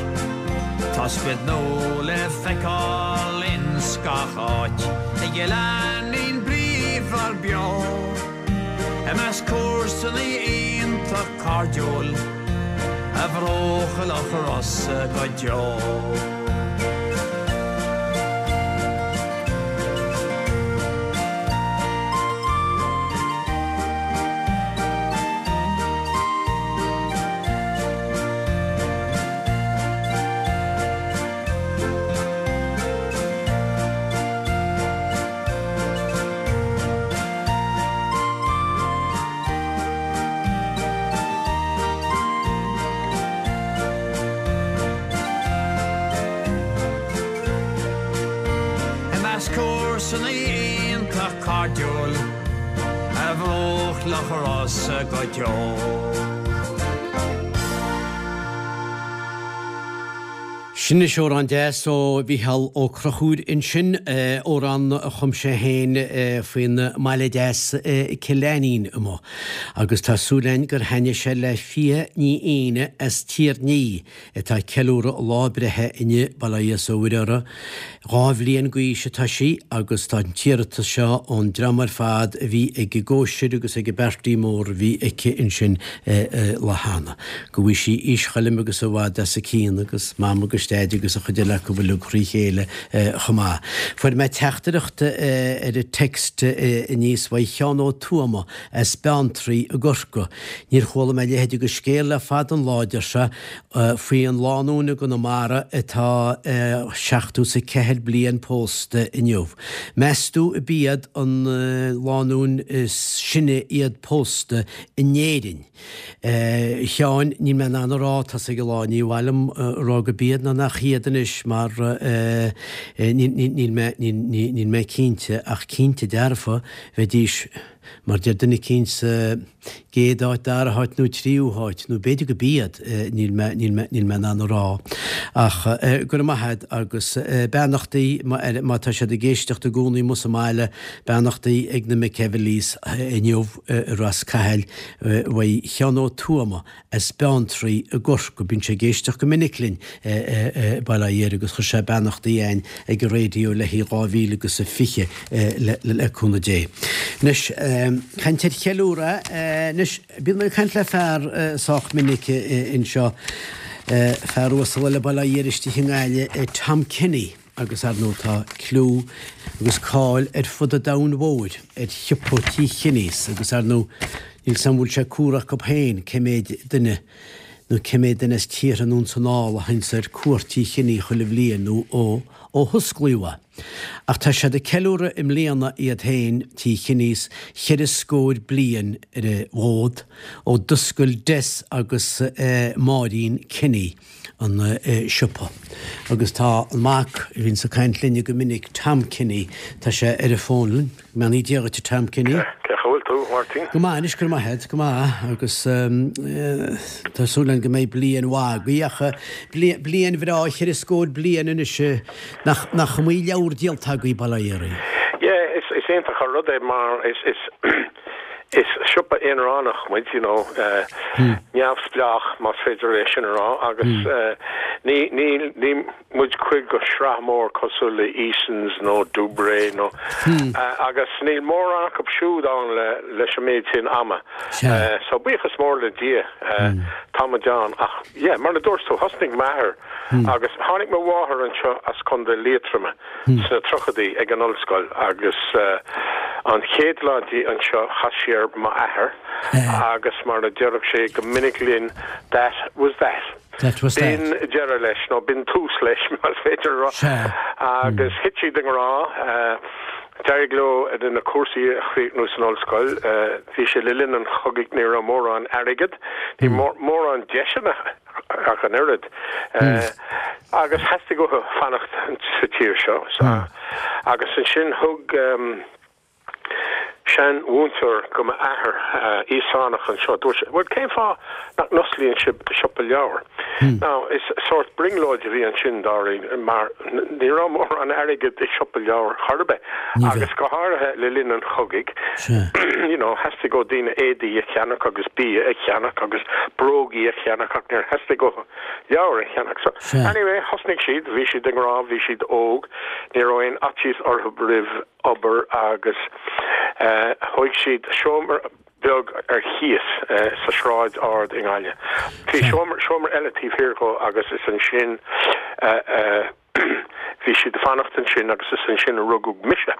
Tá sprid nua le feiceáil ins gach áit i gCill Ainnín bríomhar beo. I measc comharsana iontach cairdiúil. A bhruach Loch Rosa go deo. I measc comharsana iontach cairdiúil ar bhruach Loch Rosa go deo. Sin anois amhrán deas ó Mhícheál Ó Conchúir ansin, amhrán a chum sé féin faoin mbaile deas Cill Ainnín amuigh. Agus tá súil againn gur thaitnigh sé le Fia Ní Éanna as Tír an Fhia atá ag ceiliúradh a lá breithe inniu, bail ó Dhia is ó Mhuire uirthi. 2 bhliain d'aois atá sí agus tá an t-iarratas seo ón dream ar fad a bhí ag an gcóisir agus ag an bparty mór a bhí aici ansin lá cheana. Go bhfaighe sí aois choilm agus i bhfad as a cionn agus Mam agus Deaid agus an chuid eile acu uilig thrí chéile chomh maith. Fuair mé teachtaireacht ar an text aníos uaidh Sheán Ó Tuama as Beanntraí i gCorcaigh. Níor chuala mé a leithéid de scéal le fada an lá, a deir sé. Faoi an lánúin i gConamara atá 74 bliain pósta inniu. Meas tú ab iad an lánúin is sine iad pósta in Éirinn? A Sheáin, níl mé in ann a rá, tá's ag an lá, ní mhaith liom a rá go b'iad nó nach iad anois mar níl mé, níl mé cinnte ach cinnte dearfa bheidís mar deir duine eicínt sa gcéad áit, dara háit nó tríú háit, nó b'fhéidir go b'iad, níl mé, níl mé, níl mé in ann a rá. Ach go raibh maith a'd agus beannachtaí má tá siad ag éisteacht i gcónaí amuigh sa mbaile, beannachtaí ag na McEvilleys inniu i Ros Cathail uaidh Sheán Ó Tuama as Beanntraí i gCorcaigh. Bíonn sé ag éisteacht go minic linn i Baile Átha Fhirdh agus chuir sé beannachtaí a'ainn ag an raidió le haghaidh 2020 le cúnamh Dé. Anois, caint ar cheiliúradh, anois, bíonn mé ag caint le fear sách minic anseo, fear uasal eile Baile Átha Fhirdh istigh i nGaillimh, Tom Kenny. Agus ar ndóigh tá cliú agus cáil ar fud an domhain mhóir ar shiopa Tí Kenny's agus ar ndóigh níl 's a'm an bhfuil sé cumhra acu féin cé méid duine nó cé méid duine as tíortha anonn 's anall a théanns ar cuairt Tí Kenny chuile bhliain nó ó ó hosclaíodh é. Ach tá siad ag ceiliúradh i mbliana iad féin, Tí Kenny's, cheithre scór bliain ar an bhfód ó d'oscail Des agus Máirín Kenny. an siopa. Agus tá an mac a bhíonns ag caint linne go minic, Tom Kenny, tá sé ar an bhfón linn. Go mbeannaí Dia dhuit, a Tom Kenny. Cén chaoi a bhfuil tú, a Mháirtín? Go maith anois, go raibh maith agat, go maith. Agus tá súil againn go mbeidh bliain mhaith agaibh, ach bliain bhreá, cheithre scór bliain anois, nach nach iomaí leabhar díolta agaibh, bail ó Dhia oraibh. Yeah, is iontach an rud é mar is Is siopa aonaránach muid, you know, neamhspleách más féidir é sin a rá agus ní, ní, ní muid cuid de shraith mór cosúil le Easons nó Dubray nó agus níl mórán acu siúd ann le, leis an méid sin ama. So buíochas mór le Dia tá muid ann ach yeah, mar a dúirt tú, thosnaigh m'athair agus tháinig mo mháthair anseo as Contae Liatroma. sna tríochaidí ag an ollscoil agus an chéad lá di anseo chas sí ar m'athair agus mar a déarfadh sé go minic linn that was that. That was that. B'in deireadh leis, nó b'in tús leis más féidir a rá. Agus thit siad i ngrá. D'éirigh leo na cúrsaí a chríochnú san ollscoil. Bhí sé le linn an chogaidh, ní raibh mórán airgid, ní mórán deiseanna. ach an oiread. Agus theastaigh uathu fanacht sa tír seo. Agus ansin thug seanmhúinteoir go m'athair, Íosánach anseo, dúirt sé, bhuel cén fáth nach n-osclaíonn sibh siopa leabhar? Now is sórt brionglóid a bhí ansin dáiríre mar ní raibh mórán airgid i siopa leabhar chor ar bith agus go háirithe le linn an chogaidh. You know, theastaigh ó daoine éadaí a cheannach agus bia a cheannach agus brógaí a cheannach ach níor theastaigh uathu leabhair a cheannach. So, anyway, thosnaigh siad, bhí siad i ngrá, bhí siad óg, ní raibh aon fhaitíos orthu roimh obair agus eh, thóig siad seomra. beag ar chíos sa Sráid Ard i nGaillimh. Bhí seomra, seomra eile taobh thiar dhó agus is ansin a bhí siad ag fanacht ansin agus is ansin a rugadh mise.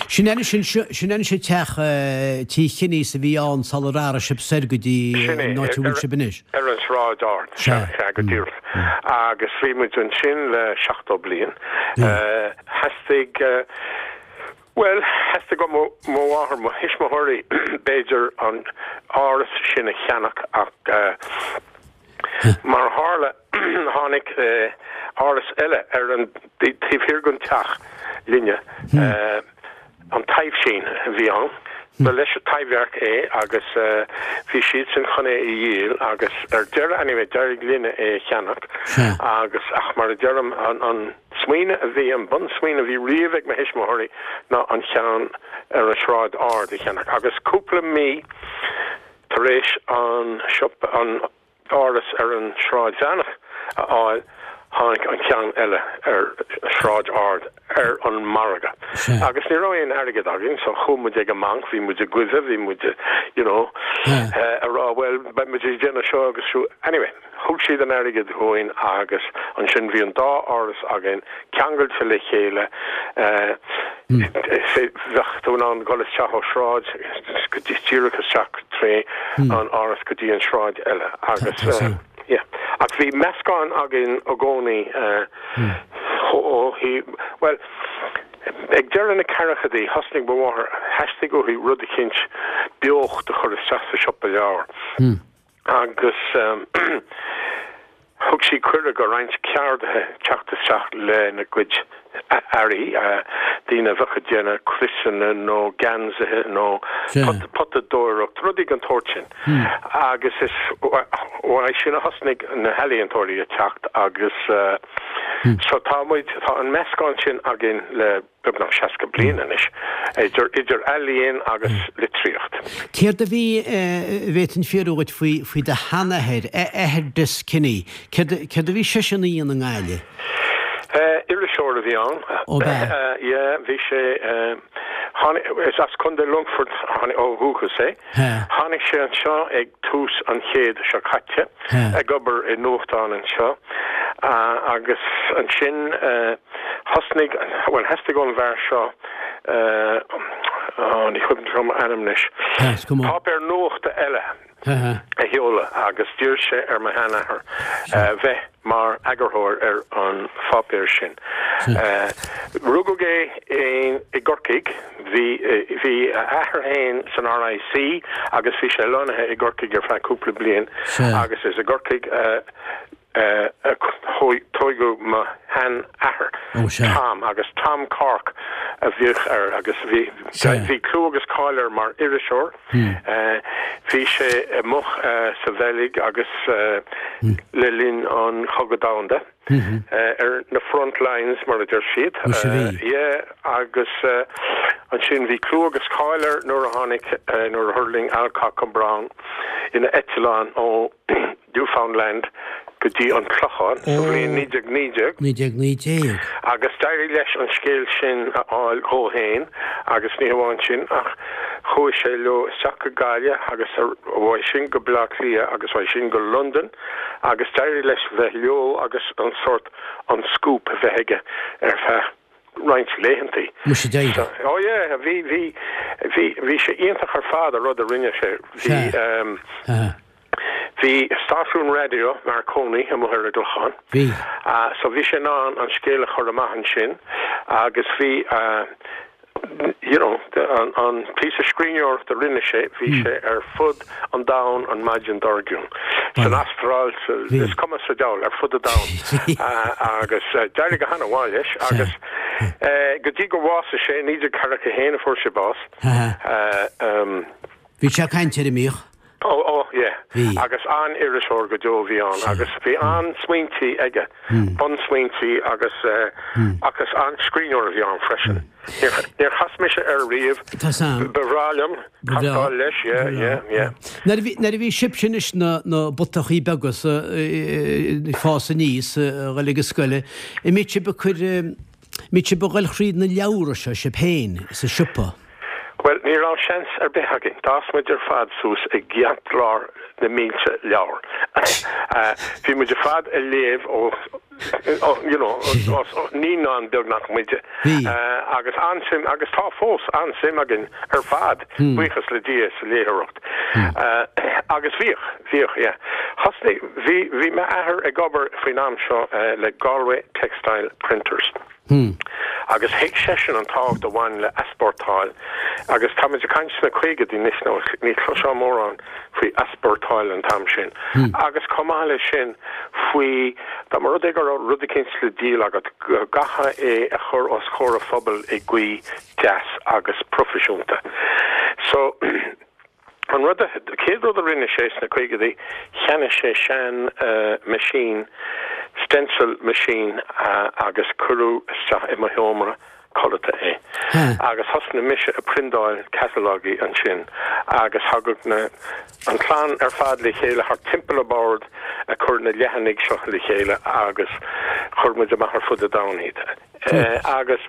Sin anois, sin anois an teach Tí Chinneys a bhí ann sular athraigh sibh soir go dtí Sin é, an áit a bhfuil sibh anois. ar an Sráid Ard, sea, sea, go díreach. Agus bhí muid ansin le 70 bliain. Theastaigh. Bhuel, theastaigh ó mo mháthair, mo thuismitheoirí, b'fhéidir, an áras sin a cheannach ach mar a tharla tháinig áras eile ar an taobh thiar den teach linne, an Taibhsín a bhí ann. Ba leis an Taibhdhearc é agus bhí siadsan chun é a dhíol agus ar deireadh, anyway, d'éirigh linne é a cheannach agus ach mar a deirim, an. Smaoineamh a bhí, an bunsmaoineamh a bhí riamh ag mo thuismitheoirí ná an cheann ar an Sráid Ard a cheannach agus cúpla mí tar éis an siopa, an áras ar an Sráid Mheánach a fháil, tháinig an ceann eile ar Sráid Ard ar an margadh. Agus ní raibh aon airgead againn so chuaigh muid ag an mbanc, bhí muid ag goimhe, bhí muid you know a rá bhuel beidh muid ag déanamh seo agus siúd. Anyway. Thug siad an airgead dhúinn agus ansin bhí an dá áras againn ceangailte le chéile. Bheadh tú in ann dul isteach ó shráid go dtí díreach isteach tré an áras go dtí an sráid eile agus yeah. Ach bhí meascán againn i gcónaí ó thaobh, bhuel, ag deireadh na ceathrachaidí thosnaigh mo mháthair, theastaigh uaithi rud eicínt beocht a chur isteach sa siopa leabhar. agus thug sí cuireadh do roinnt ceardaithe teacht isteach lena gcuid earraí, daoine a bheadh ag déanamh criosanna nó geansaithe nó potadóireacht, rudaí den tsórt sin. Agus is uaidh sin a thosnaigh na healaíontóirí ag teacht agus so tá muid, tá an meascán sin againn le. beagnach 60 bliain anois, idir idir ealaíon agus litríocht. Céard a bhí, a bhféadfainn fiafraí dhuit faoi, faoi do sheanathair, athair Des Kinney, céard, céard a bhí seisean a dhéanamh i nGaillimh? Iriseoir a bhí ann. Ó b'ea? Yeah, bhí sé, tháinig, is as Contae Longfoirt ó dhúchas é. Tháinig sé anseo ag tús an chéid seo caite, ag obair i nuachtán anseo agus ansin, Thosnaigh, bhuel, theastaigh ón bhfear seo, á, ní cuimhin liom a ainm anois, páipéar nuachta eile a sheoladh agus d'iarr sé ar mo sheanathair bheith mar eagarthóir ar an pháipéar sin. Rugadh é i gCorcaigh, bhí, bhí a athair féin san RIC agus bhí sé lonnaithe i gCorcaigh ar feadh cúpla bliain agus is i gCorcaigh a a tóigeadh mo shean-athair, Tom, agus Tom Cork a bhíodh air agus bhí bhí clú agus cáil air mar iriseoir. Bhí sé amuigh sa Bheilg agus le linn an Chogadh Domhanda, ar na front lines mar a deir siad. Yeah, agus ansin bhí clú agus cáil air nuair a tháinig, nuair a thuirling Alcock and Brown ina eitleán ó Newfoundland go dtí an Clochán sa bhliain 1919. 1919. Agus d'éirigh leis an scéal sin a fháil dhó fhéin agus ní hamháin sin ach chuaigh sé leo isteach go Gaillimh agus uaidh sin go Baile Átha Cliath agus uaidh sin go Londain agus d'éirigh leis bheith leo agus an sórt an scoop a bheith aige ar feadh roinnt laethantaí. Muise d'éirigh. Oh yeah, bhí, bhí, bhí, bhí sé iontach ar fad an rud a rinne sé. Bhí, Sea. Bhí stáisiún raidió Marconi amuigh ar an gClochán. Bhí. So bhí sé in ann an scéal a chur amach ansin agus bhí you know an an píosa scríbhneoireachta a rinne sé, bhí sé ar fud an domhain an maidin dár gcionn. San Astráil, sa, is cuma sa diabhal, ar fud an domhain. Agus d'éirigh go han-mhaith leis agus go dtí gur bhásaigh sé, 1941 a fuair sé bás. Bhí sé ag caint air, an mbíodh? Ó, ó, yeah. Bhí. Agus an-iriseoir go deo a bhí ann agus bhí an-smaointí aige, bunsmaointí agus eh, agus an-scríbhneoir a bhí ann freisin. Níor, níor chas mise air riamh. Tá sam. Ba bhreá liom Ba bhreá. castáil leis, yeah, Ba bhreá. yeah, yeah. Nuair a bhí, nuair a bhí sibhse anois na, na butachaí beaga sa, eh, ag fás aníos, eh, a dhul ag an scoil, an mbíodh sibh ag cur, eh, mbíodh sibh ag dhul thríd na leabhra seo sibh féin sa siopa? Bhuel, ní. Ní raibh seans ar bith againn. D'fhás muid ar fad suas i gceartlár na mílte leabhar. Bhí muid ar fad ag léamh ó, you know, ó naíonáin beagnach muide. Agus an-suim, agus tá fós an-suim againn ar fad, buíochas le Dia, sa léitheoireacht. Agus bhíodh, bhíodh, yeah. Thosnaigh, bhí, bhí m'athair ag obair faoin am seo le Galway Textile Printers. Agus thuig seisean an tábhacht a bhain le easpórtáil, agus tá muid ag caint sna caogaidí anois, nó ní chloisfeá mórán faoi easpórtáil an t-am sin, agus chomh maith leis sin faoi, dá mba rud é go raibh rud eicínt le díol agat, go gcaithfeá é a chur os comhair an phobail i gcaoi deas agus proifisiúnta. So. An rud a, chéad rud a rinne sé sna caogaidí, cheannaigh sé sean machine, stencil machine agus cuireadh isteach i mo sheomra codlata é. Agus thosnaigh mise ag priondáil catalogaí ansin agus thagadh na, an chlann ar fad le chéile thart timpeall an bord ag cur na leathanaigh seo le chéile agus chuir muid amach ar fud an domhain iad. Agus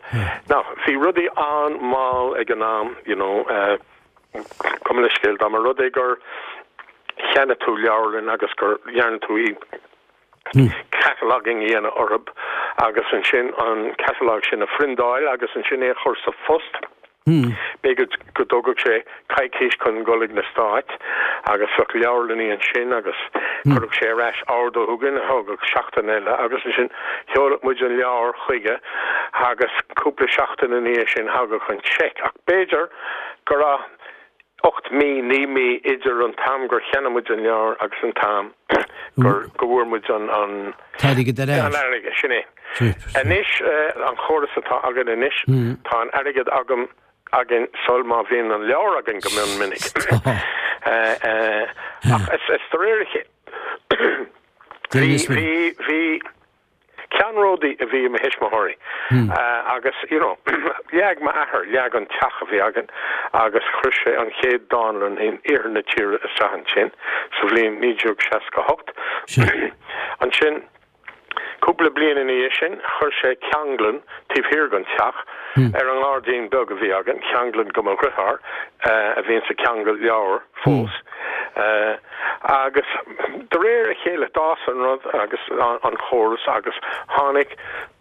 now bhí rudaí an-mhall ag an am, you know, Gabh mo leithscéal, dá mba rud é gur cheannaigh tú leabharlann agus gur dhearna tú í cataloguing a dhéanamh orthu agus ansin an catalogue sin a phriondáil agus ansin é a chur sa phost, b'fhéidir go dtógadh sé coicís chun dul ag na Stáit agus bheadh leabharlannaí ansin agus chuirfeadh sé ar ais ordú chugainn a thógadh seachtain eile agus ansin sheoladh muid an leabhar chuige agus cúpla seachtain ina dhiaidh sin thagadh an seic ach b'fhéidir go raibh 8 mí, 9 mí idir an t-am gur cheannaigh muid an leabhar agus an t-am gur, go bhfuair muid an, an. T-airgead ar ais. An airgead, sin é. Anois, an chóras atá againn anois, tá an airgead agam, againn sul má bhíonn an leabhar againn go mion minic. Ach is, is de réir a chéile, bhí, bhí, bhí, Ceannródaí a bhí i mo thuismitheoirí agus you know leag m'athair, leag an teach a bhí againn agus chuir sé an chéad dánlann in iarthar na tíre isteach ansin sa bhliain 1968. Ansin cúpla bliain ina dhiaidh sin chuir sé ceanglann taobh thiar den teach ar an ngairdín beag a bhí againn, ceanglann go mo dheartháir a bhíonns ag ceangal leabhar fós. Agus de réir a chéile d'fhás an rud agus an chóras agus tháinig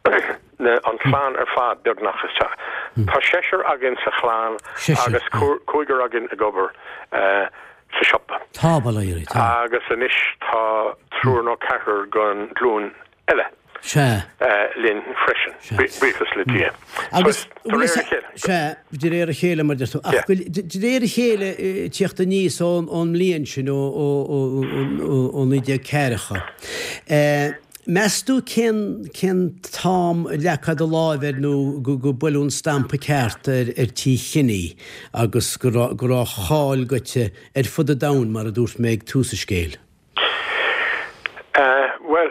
an chlann ar fad beagnach isteach. Tá seisear againn sa chlann agus cúigear againn ag obair sa siopa. Tá, bail ó Dhia oraibh, tá. Agus anois tá triúr nó ceathrar den ghlúin eile. Sea. linn freisin, buíochas le Dia. Agus, de réir a chéile. Sea, de réir a chéile, mar a deir tú. Ach de réir a chéile, tíocht aníos ón mbliain sin, ó 1940, meas tú cén cén t-am a leagfá do láimh air nó go buaileadh an stampa ceart ar Tí Kenny agus go raibh go raibh a cháil goite ar fud an domhain, mar a dúirt mé ag tús an scéil? Bhuel,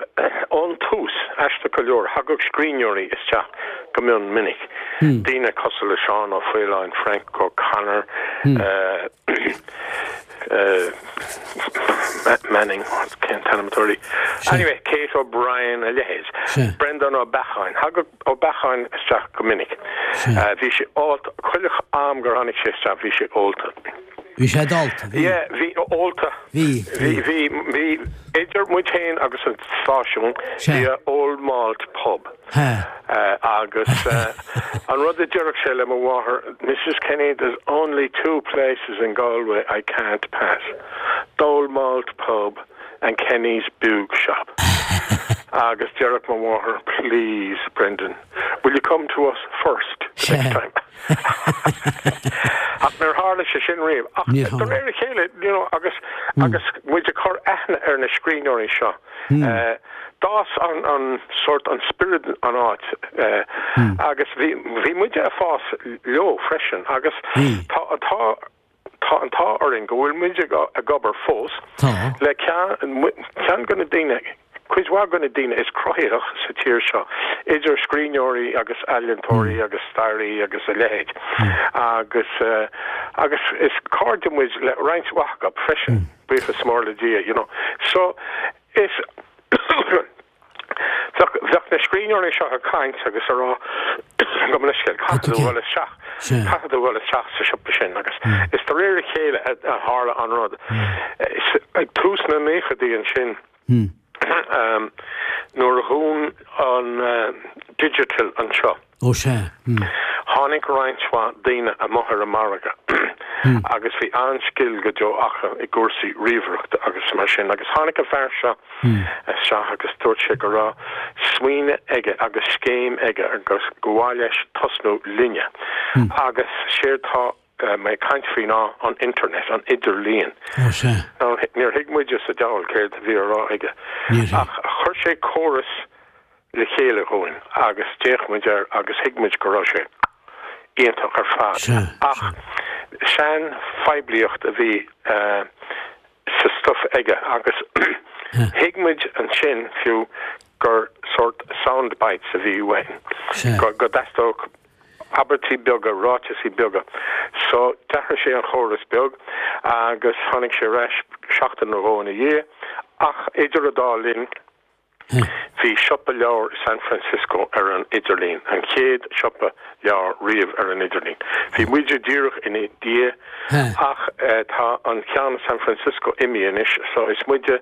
ón tús, aisteach go leor, thagadh scríbhneoirí isteach go mion minic. Daoine cosúil le Seán Ó Faoláin, Frank O'Connor, Manning, cén t-ainm atá uirthi? Anyway, Kate O'Brien, a leithéid. Breandán Ó Beacháin. Thagadh Ó Beacháin isteach go minic. Bhí sé ólta, chuile am gur tháinig sé isteach bhí sé ólta. Bhí sé dálta, bhí. Yeah, bhí, ólta. Bhí, bhí. Bhí, bhí, idir muid féin agus an stáisiún, bhí a Old Malt Pub. Ha. Agus an rud a deireadh sé le mo mháthair, Mrs Kenny, there's only two places in Galway I can't pass, the Old Malt Pub and Kenny's Boob Shop. Agus deireadh mo mháthair, please, Brendan, will you come to us first the next time? Ach níor tharla sé sin riamh. Ach de réir a chéile, you know, agus agus muid ag cur aithne ar na scríbhneoirí seo, d'fhás an an sórt an spiorad an áit agus bhí bhí muide ag fás leo freisin agus tá tá Tá an t-ádh orainn go bhfuil muid ag obair fós le ceann de na daoine, cuid mhaith de na daoine is cruthaitheach sa tír seo, idir scríbhneoirí agus ealaíontóirí agus staraí agus a leithéid. Agus agus is cairde muid le roinnt mhaith acu freisin, buíochas mór le Dia, you know. So is bheadh na scríbhneoirí seo ag caint agus ag rá. Gabh mo leithscéal, caithfidh tú a dhul isteach, caithfidh tú a dhul isteach sa siopa sin agus is de réir a chéile a tharla an rud. Ag tús na naochadaí ansin, nuair a dhún an Digital anseo, Ó sea. Tháinig roinnt mhaith daoine amuigh ar an margadh agus bhí an-scil go deo acu i gcúrsaí ríomhaireachta agus mar sin agus tháinig an fear seo isteach agus dúirt sé go raibh smaoineamh aige agus scéim aige agus gur mhaith leis tosnú linne agus séard tá mé ag caint faoi ná an internet, an idirlíon. Ó sea. Now níor thuig muide sa diabhal céard a bhí á rá aige ach chuir sé córas le chéile dhúinn agus d'fhéach muid air agus thuig muid go raibh sé iontach ar fad. Ach sean-phoiblíocht a bhí sa stuif aige agus thuig muid ansin fiú gur sórt sound bites a bhí uainn, go dteastódh abairtí beaga, ráiteasaí beaga. So d'athraigh sé an chóras beag agus tháinig sé ar ais seachtain nó dhó ina dhiaidh ach idir an dá linn, Bhí siopa leabhar i San Francisco ar an idirlíon, an chéad siopa leabhar riamh ar an idirlíon. Bhí muide díreach ina dhiaidh ach tá an ceann i San Francisco imithe anois so is muide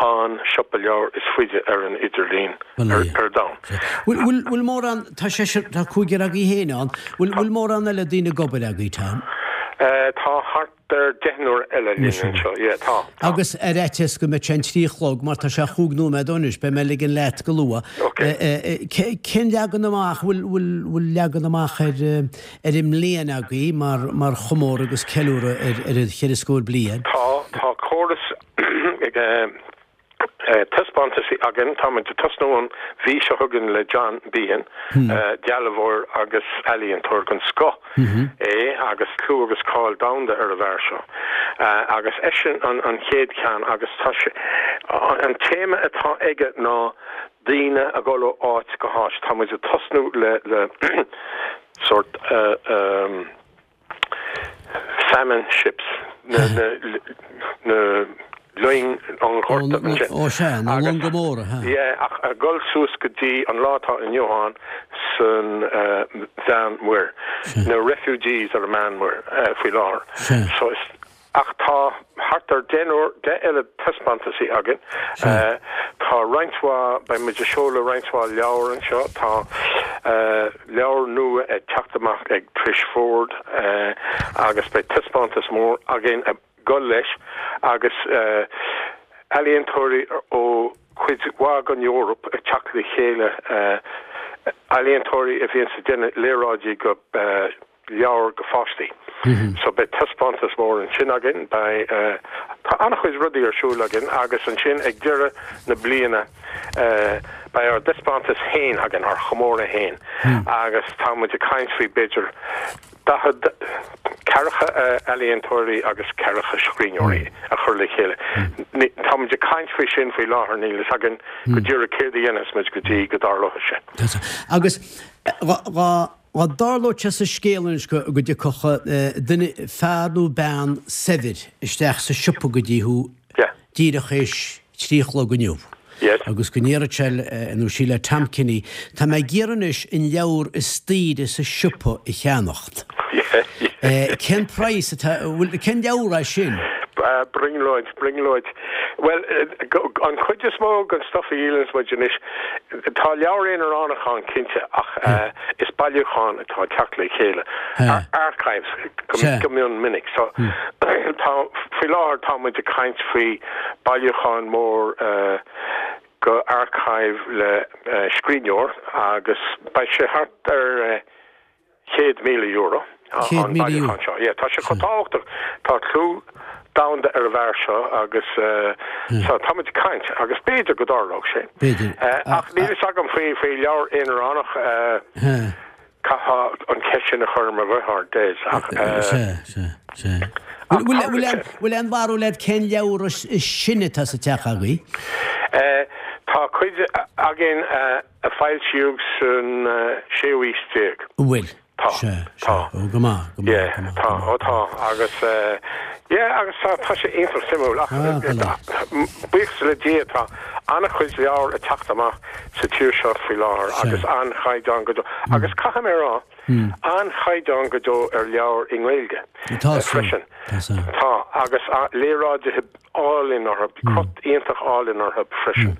an siopa leabhar is faide ar an idirlíon ar domhan. Bhfuil mórán, tá seisear, tá cúigear agaibh féin ann, bhfuil mórán eile daoine ag obair agaibh, Tom? Tá thart ar deichniúr eile linn anseo, yeah, tá, tá. Agus ar fhaitíos go mbeadh sé an 3 a chlog, mar tá sé chúig nóiméad ó anois, beidh mé ag ligean leat go luath. Ok. Cén leagan amach, bhfuil, bhfuil, bhfuil leagan amach ar, ar an mbliain agaibh mar, mar chomóradh agus ceiliúradh ar, ar an cheithre scór bliain? Tá, tá córas ag, taispeántaisí againn. Táimid ag tosnú an mhí seo chugainn le John Behan, dealbhóir agus ealaíontóir den scoth é agus clú agus cáil domhanda ar an bhfear seo. Agus eisean an chéad cheann agus tá sé, an téama atá aige ná daoine ag dul ó áit go háit. Táimid ag tosnú le le sórt famine ships, na loing an ghorta ansin. Ó sea, na longa móra, ha. Yeah, ach ag dul suas go dtí an lá atá inniu ann san Mheánmhuir, na refugees ar an Meánmhuir faoi láthair. Sea. So is. Ach tá thart ar deichniúr, 10 eile taispeántaisí againn. Tá roinnt mhaith, beidh muid ag seoladh roinnt mhaith leabhar anseo. Tá leabhar nua ag teacht amach ag Trish Ford agus beidh taispeántas mór againn ag dul leis agus ealaíontóirí ó chuid mhaith den Eoraip ag teacht le chéile, ealaíontóirí a bhíonns ag déanamh léaráidí go. leabhair do pháistí. So beidh taispeántas mór ansin againn, beidh, tá an-chuid rudaí ar siúl againn agus ansin ag deireadh na bliana beidh ár dtaispeántas féin againn, ár chomóradh féin agus tá muid ag caint faoi b'fhéidir 40, ceathracha ealaíontóirí agus ceathracha scríbhneoirí a chur le chéile. Tá muid ag caint faoi sin faoi láthair, níl fhios againn go díreach céard a dhéanfas muid go dtí go dtarlóidh sé. Agus dhá Dá dtarlódh sé sa scéal anois go dtiocfadh duine, fear nó bean saibhir isteach sa siopa go dtí thú díreach théis 3 a chlog inniu agus go ndéarfadh sé nó sí le Tom Kinney, tá mé ag iarraidh anois an leabhar is daoire sa siopa a cheannacht. Cén praghas atá, bhfuil, cén leabhar é sin? Brionglóid, brionglóid. Bhuel, an chuid is mó den stuff a dhíolanns muid anois, tá leabhar aonaránach ann cinnte ach is bailiúchán atá ag teacht le chéile, archives go mion minic. So tá, faoi láthair tá muid ag caint faoi bailiúchán mór go archive le scríbhneoir agus beidh sé thart ar €100,000 an bailiúchán seo. Yeah, tá sé chomh tábhachtach. Tá clú domhanda ar an bhfear seo agus so tá muid ag caint agus b'fhéidir go dtarlódh sé. B'fhéidir. Ach níl fhios agam faoi faoi leabhar aonaránach caithfeá an cheist sin a chur ar mo dheartháir Des ach Sea, sea, sea. Bhfuil aon bharúil agat cén leabhar is sine atá sa teach agaibh? Tá cuid againn a foilsíodh san séú aois déag. An bhfuil? Tá. Sea, sea. Tá. Ó, go maith, go maith, Yeah, go maith, tá, go maith. ó tá, agus eh, yeah, agus tá, tá sé iontach suimiúil ach Ah, go leor. buíochas le Dia tá an-chuid leabhar ag teacht amach sa tír seo faoi láthair Sea. agus an-chaighdeán go deo. Agus caithfidh mé a rá, an-chaighdeán go deo ar leabhair i nGaeilge Tá san, freisin. tá san. Tá, agus léaráidithe álainn orthu, crot iontach álainn orthu freisin.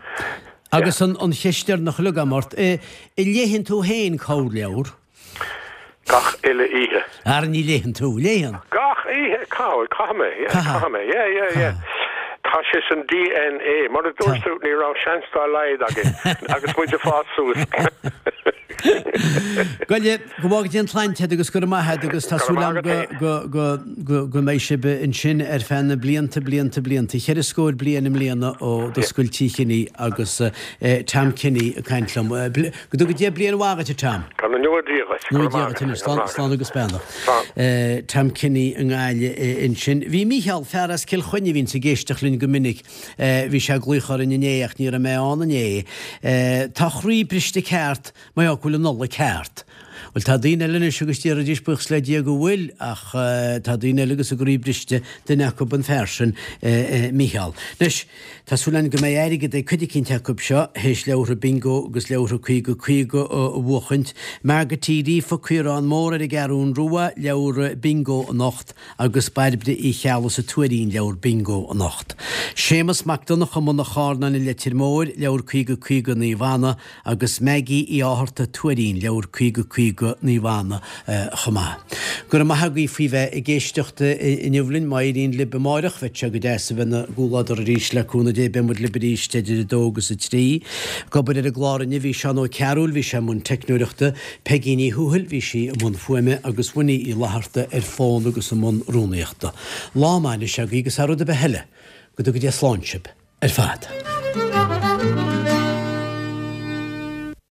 Agus an cheist deireanach uilig agam ort, an léigheann tú féin corrleabhar? Gach uile oíche. Ara ní léigheann tú, léigheann? Gach oíche, caithfidh, caithfidh mé, yeah, caithfidh mé, yeah, yeah, yeah. Tá sé san DNA. Mar a dúirt tú, ní raibh seans dá laghad againn agus muid ag fás suas. Goile, go bhfága Dia an tsláinte agat agus go raibh maith agat agus tá súil agam go, go, go, go mbeidh sibh ansin ar feadh na blianta, blianta, blianta. Cheithre scór bliain i mbliana ó d'oscail Tigh Kinney agus Tom Kinney ag caint liom. Go dtuga Dia bliain mhaith duit, a Tom. Go ngnóthaí Dia dhuit. Go ngnóthaí Dia dhuit anois. Slán, slán agus beannacht. Slán. Tom Kinney i nGaillimh ansin. Bhí Mícheál, fear as Cill Chainnigh a bhíonns ag éisteacht linn go minic, bhí sé ag glaoch orainn inné ach ní raibh mé ann inné. Tá a chroí briste ceart, mar gheall go bhfuil an Nollaig thart. Bhuel, tá daoine eile anois agus déarfaidís buíochas le Dia go bhfuil, ach tá daoine eile agus a gcroí briste, duine acu an fear sin, Mícheál. Anois, tá súil againn go mbeidh airgead ag cuid eicínt acu seo théis leabhartha Bingo agus leabhartha 50 50 a bhuachaint. Margaret Uí Ríofa, Caorán Mór ar an gCeathrún Rua, leabhar Bingo anocht agus Bairbre Uí Cheallaigh sa Tuairín, leabhar Bingo anocht. Séamus Mac Donncha i mBun an Charnáin i Leitir Móir, leabhar 50 50 Naomh Anna, agus Maggie Uí Fhátharta, Tuairín, leabhar 50 50 Naomh Anna chomh maith. Go raibh maith agaibh faoi bheith ag éisteacht inniu linn. Má éiríonn libh amáireach, bheadh sé go deas a bheith ina gcomhluadar arís le cúnamh Dé. Beidh muid libh arís idir 2 agus 3. Ag obair ar an gclár inniu bhí Seán Ó Cearúil, bhí sé i mbun teicneoireachta, Peigí Ní Thuathail, bhí sí i mbun fuaime agus Winnie Uí Fhlatharta ar fón agus i mbun rúnaíochta. Lá maith anois agaibh agus thar rud ar bith eile, go dtuga Dia slán sibh ar fad.